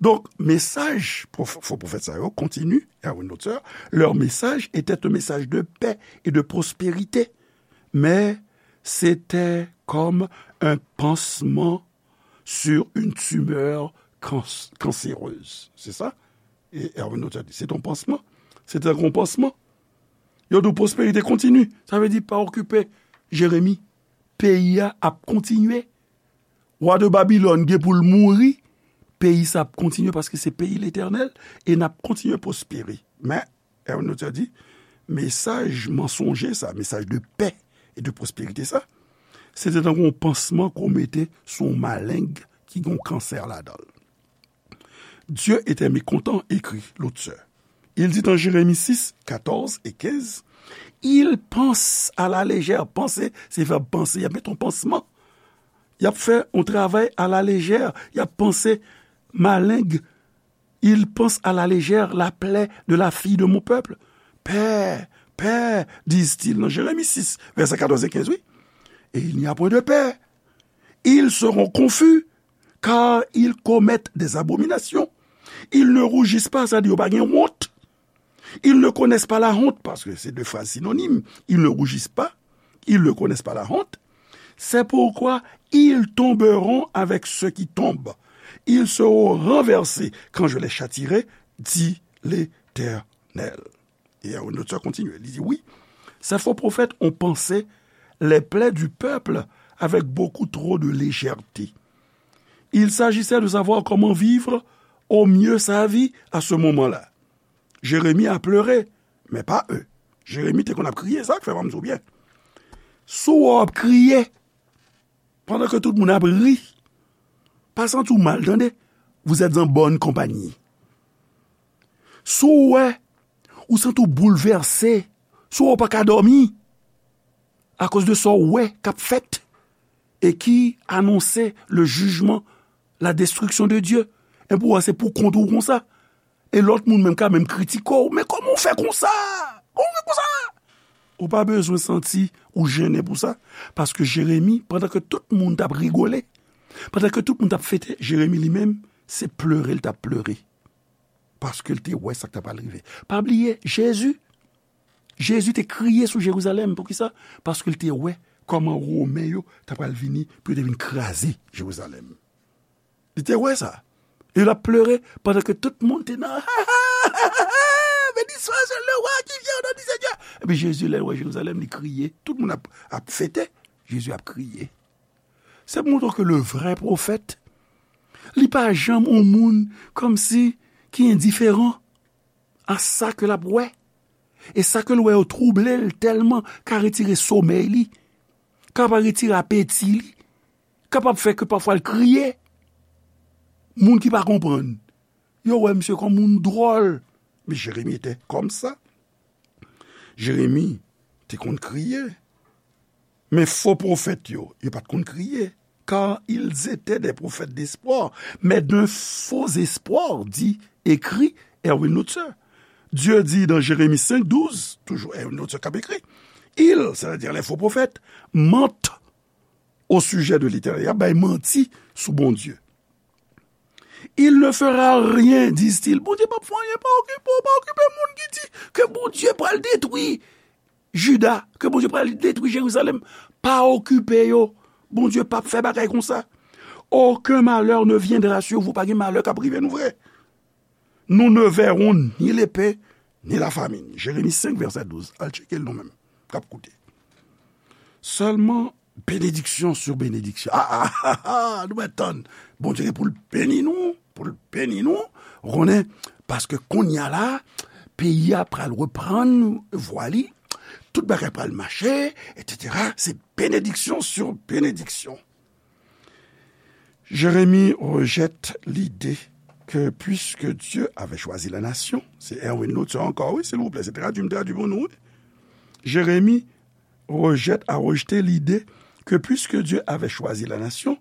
Donk, mesaj pwof-, fo pwofèt sa yo kontini, Erwin Lutzer, leur message était un message de paix et de prospérité, mais c'était comme un pansement sur une tumeur cans-, cancéreuse. Se sa? E Erwin Lutzer di, "C'est un pansement." Se te tankou yon pansman. Yo di w, "Pwosperite kontini." Sa vle di, pa okipe Jeremi. Peyi a ap kontinye. Wa de Babilòn gen pou l mouri. Peyi sa ap kontinye paske se peyi Letènèl e n ap kontinye pwospere. Men, Erwin Lutzer di, mesaj mansonje sa, mesaj de pè e de pwosperite sa, se te tankou yon pansman ke w mete sou yon maleng ki gen yon kansè ladan l. Dieu était mécontent, écrit Lutzer. Il dit en Jérémie six, quatorze et quinze, ils pensent à la légère. Panse, se vèb panse, y ap met yon pansman. Y ap fè yon travay à la légère. Y ap panse maleng. Ils pensent à la légère la plaie de la fille de mon peuple. Pè, pè, disent-ils, nan Jeremi sis, vèsè katòz e kenz, wi. Et il n'y a point de paix. Ils seront confus, car ils commettent des abominations. Ils ne rougissent pas, sa di yo pa gen wont. Ils ne connaissent pas la honte, paske se de fraz sinonim. Ils ne rougissent pas, ils ne connaissent pas la honte. C'est pourquoi ils tomberont avec ceux qui tombent. Ils seront renversés quand je les châtierai, dit l'Éternel. E Erwin Lutzer kontinye, li di, oui, ces faux prophètes ont pansé les plaies du peuple avec beaucoup trop de légèreté. Il s'agissait de savoir comment vivre au mieux sa vie à ce moment-là. Jérémie a pleuré, mais pas eux. Jeremi te konn ap kriye, sa k fè m di w byen. Si w ap kriye, pandan ke tout moun ap ri, pa santi w mal, tande. Vous êtes en bonne compagnie. Si w wè, ou santi w boulvèse, si w wè w pa ka dòmi, akoz de sa w wè k ap fèt, et qui annonçait le jugement, la destruction de Dieu. E pou wè se pou kont ou konsa. E lòt moun menm ka menm kritike w, men kòman w fè konsa? Kòman w fè konsa? Ou pa bezwen santi ou jennen pou sa, paske Jeremi, pandan ke tout moun t ap rigole, pandan ke tout moun t ap fete, Jeremi li menm, se plere l t ap plere. Paske l te wè sa k t ap pral rive. Pa bliye, Jezi, Jezi te kriye sou Jerizalèm. Poukisa? Paske l te wè kòman Women yo t ap pral vini pou yo te vin kraze Jerizalèm. Li te wè sa. E l ap plere pandan ke tout moun te nan beni swa le wa ki vyen o non di Seyè. Epi Jezi, lè l wè Jerizalèm, li kriye. Tout moun ap, ap fete. Jezi ap kriye. Se pou montre ke le vrè pwofèt, li pa janm yon moun kòmsi ki endiferan a sa ke l ap wè. E sa ke l wè yo twouble l tèlman, ka retire somèy li, ka pa retire apeti li, kapab fè ke pafwa l kriye. Moun ki pa konprann, yo wè misye kòm moun dwòl. Men Jeremi te kòm sa. Jeremi te konn kriye. Men fo pwofèt yo, yo pa t konn kriye. Car ils étaient des prophètes d'espoir, mais d'un faux espoir, dit, écrit Erwin Lutzer. Dieu dit dans Jérémie cinq douze, toujours Erwin Lutzer k ap ekri, ils, c'est-à-dire les faux prophètes, mentent au sujet de l'Éternel. Y ap bay manti sou Bondye. Il ne fera rien, disent-ils. Bondye p ap fè anyen, pa okipe w, pa okipe moun ki di ke Bondye pral detwi Jida, ke Bondye pral detwi Jerizalèm. Pa okipe yo. Bondye p ap fè bagay konsa. Aucun malheur ne viendra sur vous. Pa gen malè k ap rive nou vre. Nous ne verrons ni l'épée, ni la famine. Jeremi senk, vèsè douz. Al tcheke l nou menm k ap koute. Sèlman benediksyon sou benediksyon. Ah, ah, ah, ah, nou mèt tann. Bondye gen pou l beni nou, pou l beni nou. Ou konnen, paske kounye a la, peyi a pral reprann vwa li, tout bagay pral mache, etsetera. Se benediksyon sou benediksyon. Jérémie rejette l'idée que puisque Dieu avait choisi la nation, se Erwin Lutzer ankò, wi, silvouplè, se tradui m tradui pou nou, wi. Jérémie rejette, a rejeté l'idée que puisque Dieu avait choisi la nation,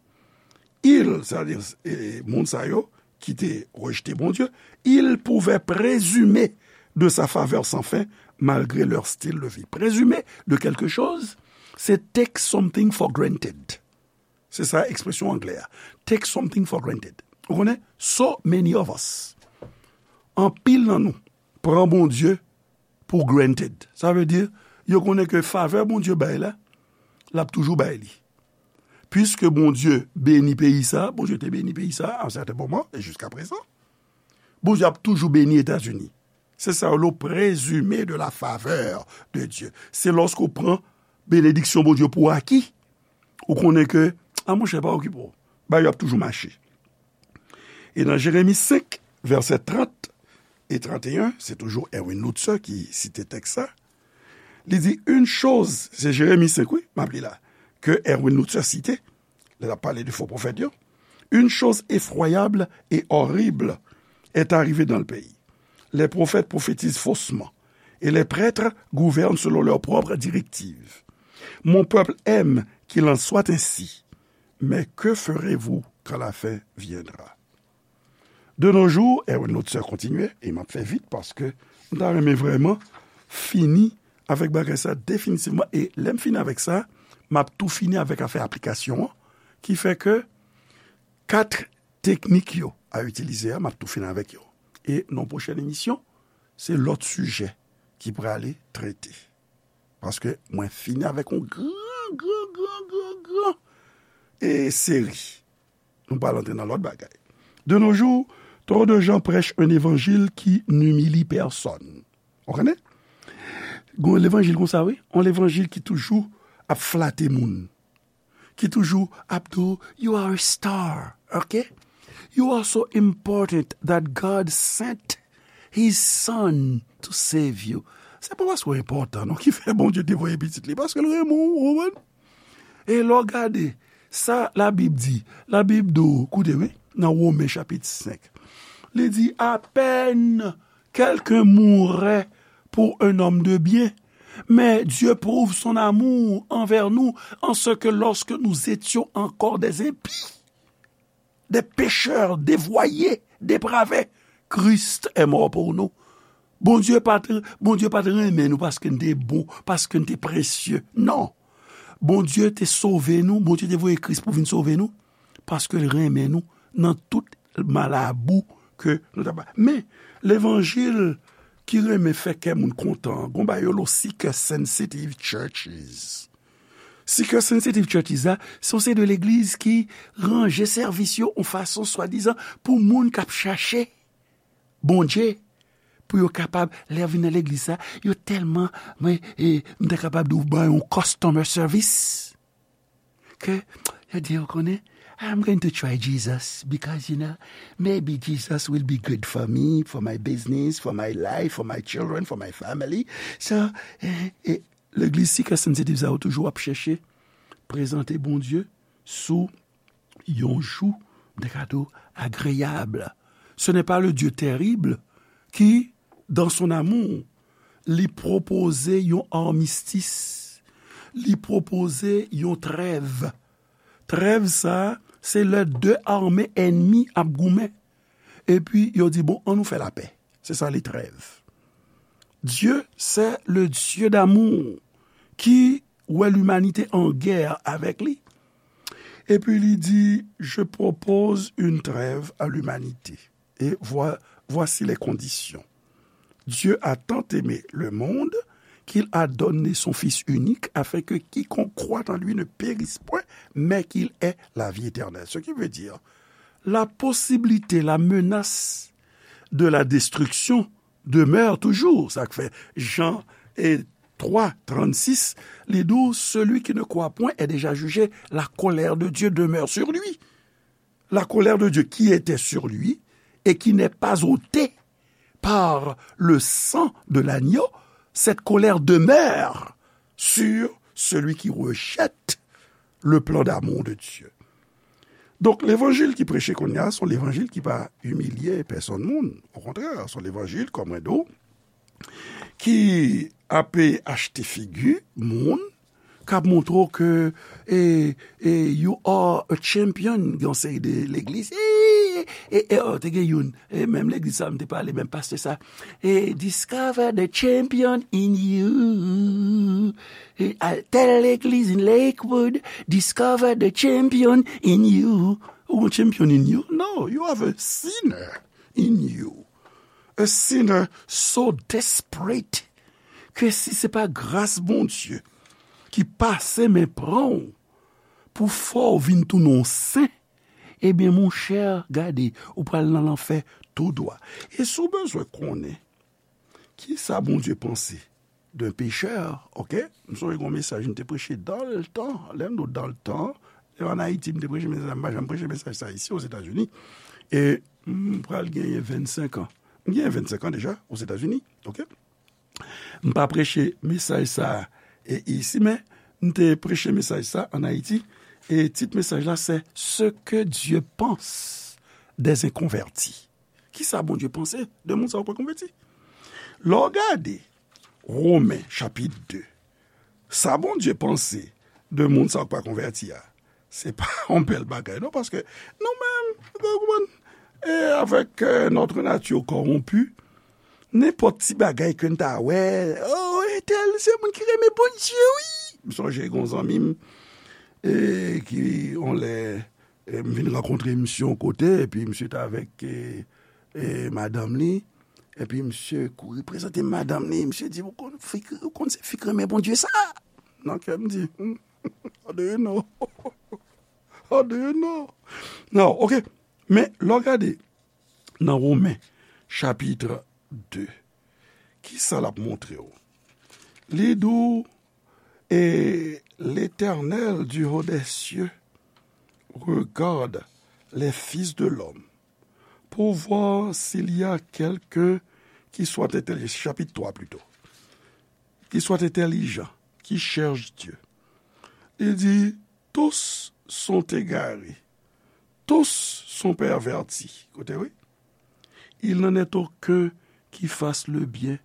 il, c'est-à-dire, e, moun sa yo ki te rejte Bondye, il pouvait présumer de sa faveur sans fin malgré leur style de vie. Présumer de quelque chose, c'est take something for granted. Se sa ekspresyon anglè a. Take something for granted. Ou konnen? So many of us. Anpil nan nou pran Bondye pou granted. Sa vle di, yo konnen ke favè Bondye bay la, l ap toujou bay li. Piske Bondye beni peyi sa, Bondye te beni peyi sa a un certain moment, e jiska prezan, Bondye ap toujou beni Etazini. Se sa yo rele présumer de la faveur de Dieu. Se lòske w pran benediksyon Bondye pou aki, ou konnen ke, a monchè, pa okipe w. Bagay yo ap toujou mache. E nan Jeremi senk, vèsè trant e tranteyen, se toujou Erwin Lutzer ki site tèks sa. Li di, une chose, se Jeremi senk, wi, m ap li la, ke Erwin Lutzer site, lè l ap pale de fo pwofèt yo. Une chose effroyable et horrible est arrivée dans le pays. Les prophètes prophétisent faussement, et les prêtres gouvernent selon leurs propres directives. Mon peuple aime qu'il en soit ainsi, mais que ferez-vous quand la fin viendra? De nos jours, Erwin Lutzer kontinye, e m ap fè vit paske m ta renmen vrèman fini avèk bagay sa definitivman. E lè m fini avèk sa, m ap tou fini avèk afè aplikasyon an, ki fè ke kat teknik yo a itilize a, m ap tou fini avèk yo. E nan pwochèn emisyon, se lòt sijè ki prale trete. Paske mwen fini avèk yon gran, gran, gran, gran, gran, e, seri. Nou pral antre nan lòt bagay. De nos jours, trop de gens prêchent un évangile qui n'humilie personne. Ou konnen? Gon levanjil konsa, wi. Yon levanjil ki toujou ap flate moun. Ki toujou ap di w, "You are a star, ok? You are so important that God sent his son to save you." Se pa paske w enpòtan, non, ki fè Bondye te voye pitit li, paske l renmen w, ou konprann? E lè w gade sa Labib di, Labib di w, koute, wi, nan Women chapit senk, li di, à peine quelqu'un mourrait pour un homme de bien, Mais Dieu prouve son amour envers nous en ce que lorsque nous étions encore des impies, des pécheurs, dévoyés, dépravés, Christ est mort pour nous. Bondye pa t, Bondye pa t renmen nou paske n te bon, paske n te presye. Non. Bondye te sove nou, Bondye te voye Kris pou vin sove nou, paske l renmen nou nan tout malabou ke nou ta pa. Men, levanjil ki renmen fè kè moun kontan, gon bagay yo lo seeker sensitive churches. Seeker sensitive churches la, se yon seri de legliz ki ranje sèvis yo yon fason swadizan pou moun k ap chache Bondye, pou yo kapab, lè yo vin nan legliz sa, yo tèlman, mwen, e, m ta kapab di w ban yon customer service. Ke yo di, ou konnen, I'm going to try Jesus because, you know, maybe Jesus will be good for me, for my business, for my life, for my children, for my family. So, e, e, legliz seeker sensitive sa yo toujou ap chèche prezante Bondye sou yon jou de kado agreyab. Ce n'est pas le Dieu terrible qui, dans son amour, li pwopoze yon armistice, li pwopoze yon trêve. Trêve sa, se lè de ame ènmi ap goumen. Epi, yo di, bon, ann nou fè lapè. Se sa, les trêves. Dieu, c'est le Dieu d'amour qui wè limanite an gè avèk li. Epi li di, je propose une trêve à l'humanité. Et voi- voici les conditions. Dieu a tant aimé le monde qu'il a donné son Fils unique afin que quiconque croit en lui ne périsse point, mais qu'il ait la vie éternelle. Ce qui veut dire, la possibilité, la menace de la destruction demeure toujours. Sa k fè Jan e twa trannsis, li di w, celui qui ne croit point est déjà jugé, la colère de Dieu demeure sur lui. La colère de Dieu qui était sur lui et qui n'est pas ôtée par le sang de l'agneau, cette colère demeure sur celui qui rejette le plan d'amour de Dieu. Donk, levanjil ki preche kounye a, se yon levanjil ki pa imilye pèsonn moun. Okontrè, se yon levanjil, kòm mwen di w, ki ape achte figi moun, k ap montre w ke, e, e, you are a champion, gen yon seri de legliz. E, e, e, oh, te gen youn, e, menm legliz sa, m te pale, menm pastè sa. E, discover the champion in you. E, al tèl legliz in Lakewood, discover the champion in you. Ou gon champion in you? No, you have a sinner in you. A sinner so desperate ke si se pa gras Bondye ki pase men pran w pou fè w vin tounen yon sen, ebyen, monchè, gade, ou pral nan lanfè tou dwa. E si w bezwen konnen kisa Bondye panse d'un pécheur, oke? M sonje gon mesaj m te preche dans le temps, lè m di w dans le temps, e ann Ayiti, m te preche mesaj, m pa janm preche mesaj sa isi, Ozetazini. E m pral genyen vennsenk an. M genyen vennsenk an deja, Ozetazini, oke? M pa preche mesaj sa a, e, isi, men m te preche mesaj sa ann Ayiti. E tit mesaj la, se Ce que Dieu pense des inconvertis. Kisa Bondye panse de moun sa yo k pa konvèti? Lè w gade Women, chapit de, sa Bondye panse de moun sa yo k pa konvèti a, se pa yon bèl bagay, non, paske nou menm, ou konprann, e avèk, euh, notre nature corrompue, nenpòt ti bagay ke n ta wè, oh, entèl se moun ki renmen Bondye, wi. M sonje gon zanmi m, e, ki, on lè, e, m vin rankontre misye yon kote, epi misye t avèk, e, e, madanm li, epi misye kouri prezante m madanm li, misye di, ou konn fi, ou konn se fi k renmen Bondye sa? Nan kè m di, hmm, how do you know? How do you know? Non, oke. Men, lè w gade nan Women, chapit de, kisa l ap montre w? Li di w, et l'Éternel du haut des cieux regarde les fils de l'homme pour voir s'il y a quelqu'un qui soit intelligent, chapit twa plito, qui soit intelligent, qui cherche Dieu. Li di, tous sont égarés, tous sont pervertis. Koute, wi. Il n'en est aucun qui fasse le bien,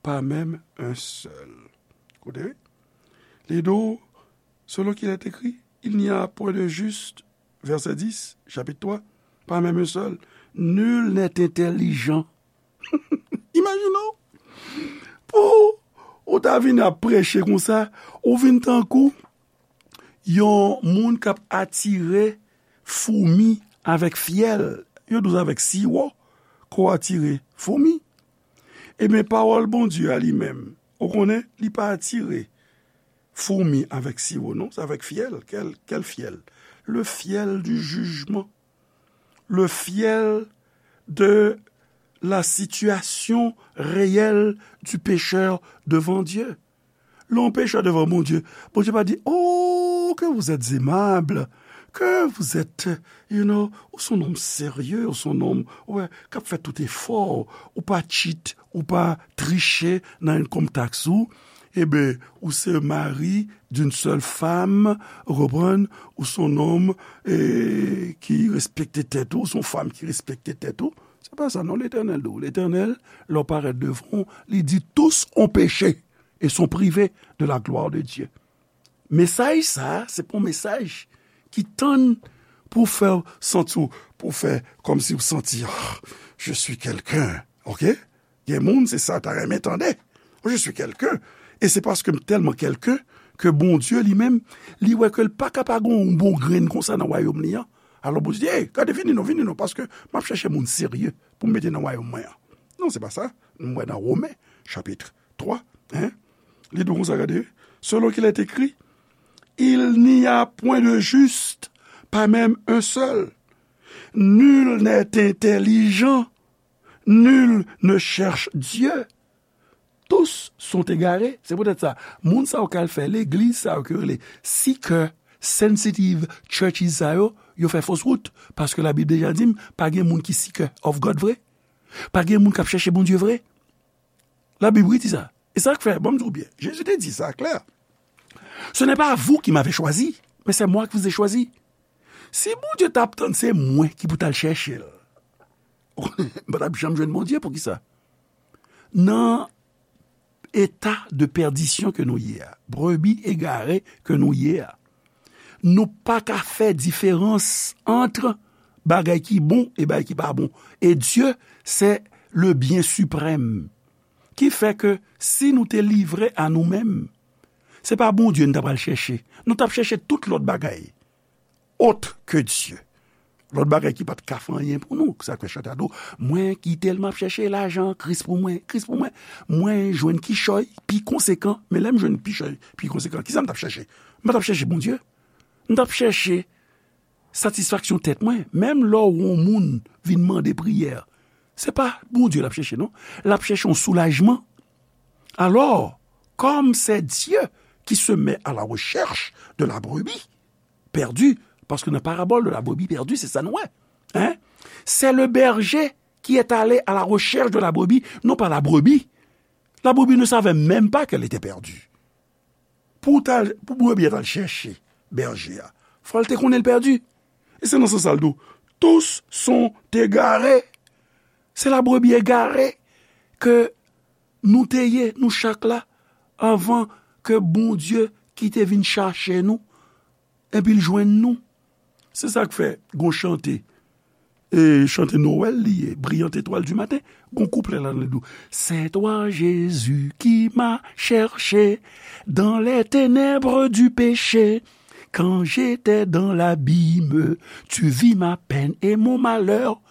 pas même un seul. Koute, wi. Li di w, selon qu'il est écrit, il n'y a point de juste, verset dix, chapitre trois, pas même un seul. Nul n'est intelligent. Imajine w, pou ou ta vin ap preche konsa, ou vin tankou yon moun k ap atire foumi avèk fyèl. Yo di w se avèk siwo ke w atire foumi. Ebyen, pawòl Bondye a li menm, ou konnen, li pa atire foumi avèk siwo, non, se avèk fyèl. Quel, quel fiel? Le fiel du jugement. Le fiel de la situation réelle du pécheur devant Dieu. Lè yon pechè devan Bondye, Bondye pa di, oh, que vous êtes aimable, que vous êtes, you know, ou se yon nonm serye, ou se yon nonm, ou wè, k ap fè tout efò, ou pa cheat, ou pa triche nan income tax ou, eben, ou se mari d'une seule femme, ou konprann, ou se yon nonm, eh, ki respekte tèt ou, ou se yon fanm ki respekte tèt ou. Se pa sa, non, Letènèl di w. Letènèl, lè w parèt devan w, li di, tous ont péché et sont privés de la gloire de Dieu. Mesaj sa a, se pa yon mesaj ki tann pou fè w santi w, pou fè kòmsi w santi, ah, je suis quelqu'un, ok? Gen moun, se sa ta renmen tande. Oh, je suis quelqu'un. E se paske m tèlman quelqu'un ke Bondye li menm, li wè ke l pa ka pa gen yon bon grenn konsa nan wayòm li an. Alò Bondye di, hey, gade, vini non, vini non, paske m ap chèche moun serye pou m mete nan wayòm mwen an. Non, se pa sa. Nou wè nan Women, chapit twa, hein? Li di w konsa, gade, selon qu'il est écrit, il n'y a point de juste, pas même un seul. Nul n'est intelligent, nul ne cherche Dieu. Tous sont égarés. Se poutèt sa, moun sa yo k al fè legliz sa yo ke yo rele seeker sensitive churches sa yo, yo fè fos wout. Paske Labib deja di m, pa gen moun ki seeker of God vre. Pa gen moun k ap chèche Bondye vre. Labib, wi, di sa. E sa k fè, ban m di w byen, Jezi te di sa klè. Ce n'est pas vous qui m'avez choisi, mais c'est moi qui vous ai choisi. Si Bondye t ap tann se mwen ki pou t al chèche l, m pa t ap janm jwenn Bondye. Poukisa? Nan eta de pèdisyon ke nou ye a, brebi egare ke nou ye a, nou pa ka fè diferans ant bagay ki bon e bagay ki pa bon. E Dye, se le byen siprèm. Ki fè ke si nou te livre a nou menm, se pa Bondye n ta pral chèche. Nou t ap chèche tout lòt bagay autre que Dieu. Lòt bagay ki pa t ka fè anyen pou nou. Sa k fè chante a di w, mwen ki tèlman ap chèche lajan, Kris pou mwen, Kris pou mwen. Mwen jwenn kichòy pi konsekan, men lè m jwenn kichòy pi konsekan, kisa m t ap chèche? M pa t ap chèche Bondye. M t ap chèche satisfaksyon tèt mwen. Menm lè w wè yon moun vin mande priyè, se pa Bondye l ap chèche, non. L ap chèche yon soulajman. Alors, comme c'est Dieu qui se met à la recherche de la brebis perdue, paske nan parabòl de la brebis perdue, se sa nou wè. Hein? C'est le berger qui est allé à la recherche de la brebis, non pas la brebis. La brebis ne savait même pas qu'elle était perdue. Pou ta, pou brebis a t al chèche bèje a, fò l te konnen l pèdi. E se nan sans sa l di w, tous sont égarés. Se la brebis égarée ke nou te ye, nou chak la, anvan ke Bondye ki te vin chache nou, epi l jwenn nou. Se sa k fè gon chante, e chante Nwèl li ye, Brillante étoile du matin, gon kouplè ladan l di w, C'est toi, Jésus, qui m'as cherché dans les ténèbres du péché. Quand j'étais dans l'abîme, tu vis ma peine et mon malheur.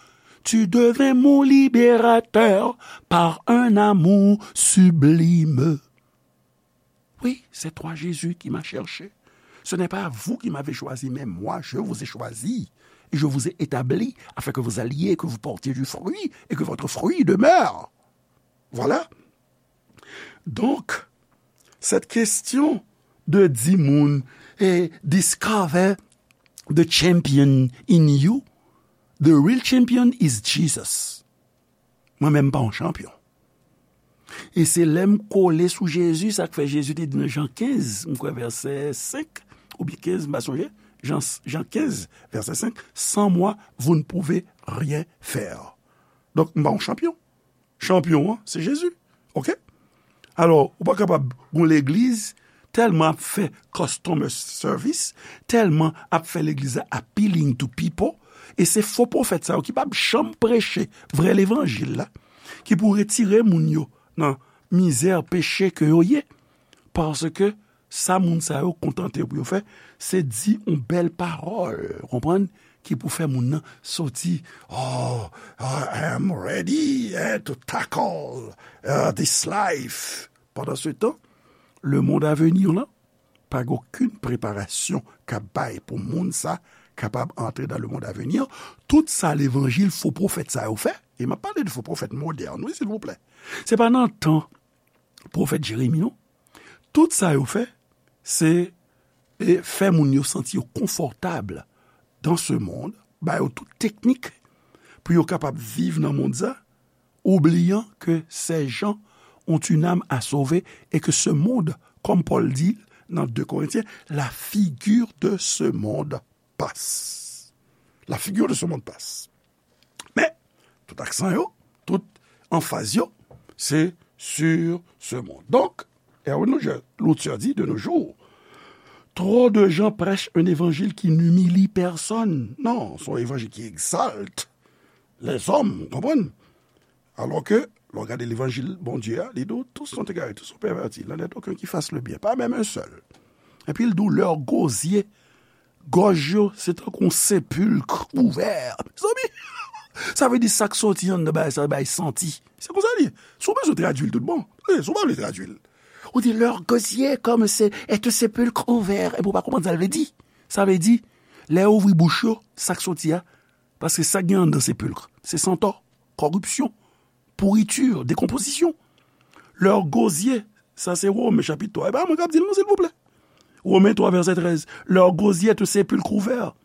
Tu devins mon libérateur par un amour sublime. Oui, c'est toi, Jésus, qui m'as cherché. Ce n'est pas vous qui m'avez choisi, mais moi, je vous ai choisi. Et je vous ai établi afin que vous alliez, que vous portiez du fruit et que votre fruit demeure. Voilà. Donc, cette question de di moun, eh, discover the champion in you, the real champion is Jesus. Mwen menm m pa yon chanpyon. E se lè m kole sou Jezi, sa k fè Jezi te di nan Jan kenz, m kwè vèsè senk oubyen kenz, m pa sonje, Jan, Jan kenz, vèsè senk, Sans moi, vous ne pouvez rien faire. Donk, m pa yon chanpyon. Chanpyon an, se Jezi. Oke? Alò, ou pa kapab gon legliz tèlman ap fè customer service, tèlman ap fè legliz la appealing to people, e se fo pwofèt sa yo ki p ap janm preche vrè levanjil la, ki pou retire moun yo nan mizè, peche ke yo ye. Paske sa moun sa yo kontante yo pou yo fè, se di yon bèl pawòl, konprann, ki pou fè moun nan soti, "Oh, I am ready, eh, to tackle, uh, this life." Pandan se tan, lemonn avenir lan, pa gen okenn preparasyon k ap bay pou moun sa kapab antre nan lemonn avenir. Tout sa levanjil fo pwofèt sa yo fè, e m ap pale de fo pwofèt modèn, wi, silvouplè. Se pa nan tan pwofèt Jeremi, non. Tout sa yo fè, se, e, fè moun yo santi yo konfòtab dans ce monde, ba yo tout teknik pou yo kapab viv nan mond sa, oubliant que ces gens ont une âme à sauver et que ce monde, comme Paul dit dans deux Corinthiens, la figure de ce monde passe. La figure de ce monde passe. Men, tout aksan yo, tout anfaz yo, se sur ce monde. Donk, Erwin Lutcher di, de nos jours, trop de gens prêchent un évangile qui n'humilie personne. Non, se yon evanjil ki egzalte lèzòm, ou konprann? Alò ke, lè w gade levanjil Bondye a, li di w, tous sont égarés, tous sont pervertis, il n'en est aucun qui fasse le bien, pas même un seul. Epi l di w, leurs gosiers, gòj yo, se tankou yon sepilk ouvè. Mezanmi, sa vle di sa k soti anndan bagay sa bay santi. Se konsa li ye. Si w bezwen tradui l tout bon, wi, si w pa vle tradui l. Ou di, leurs gosiers comme c'est, est un sépulcre ouvert. Epi w pa konprann sa l vle di. Sa vle di, lè yo ouvri bouch yo, sa k soti a, paske sa k gen anndan sepilk, se santò, kòripsyon, pourriture, décomposition. Leurs gosiers, sa se Women chapit twa. E pa mwen k ap di l non, silvouplè. Romains trois, verset treize. Leur gosier est un sépulcre ouvert.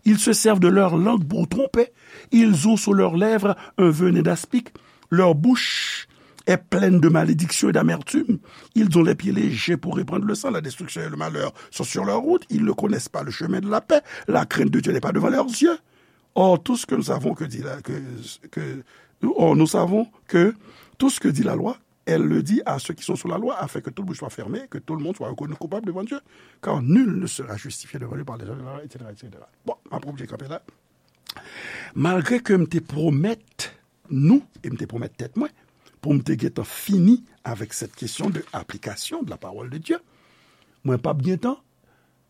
Ils se servent de leur langue pour tromper. Ils ont sur leurs lèvres un venin d'aspic. Leur bouche est pleine de malédiction et d'amertume. Ils ont les pieds légers pour répandre le sang. La destruction et le malheur sont sur leur route. Ils ne connaissent pas le chemin de la paix. La crainte de Dieu n'est pas devant leurs yeux. Or, tout ce que nous savons que dit la, que, que, or, nous savons que tout ce que dit la loi, elle le dit à ceux qui sont sous la loi, afin que toute bouche soit fermée, que tout le monde soit reconnu coupable devant Dieu, car nul ne sera justifié devant lui par les œuvres de la loi, et cetera, et cetera. Bon, m ap oblije kanpe la. Malgre ke m te pwomèt nou, e m te pwomèt tèt mwen, pou m te gentan fini avèk cette question de application de la parole de Dieu, mwen p ap gentan,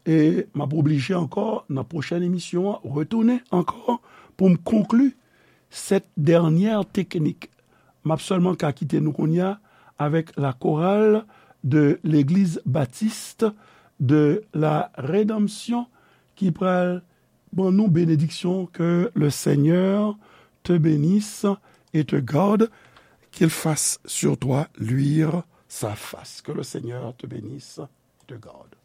e m ap oblije ankò, nan pwochèn emisyon an, retounen ankò pou m konkli cette dernière technique. M ap sèlman ka kite nou kounye a avèk la chorale de l'Église Baptiste de la Rédemption ki pral ban nou benediksyon. Que le Seigneur te bénisse et te garde, qu'il fasse sur toi luire sa face. Que le Seigneur te bénisse et te garde.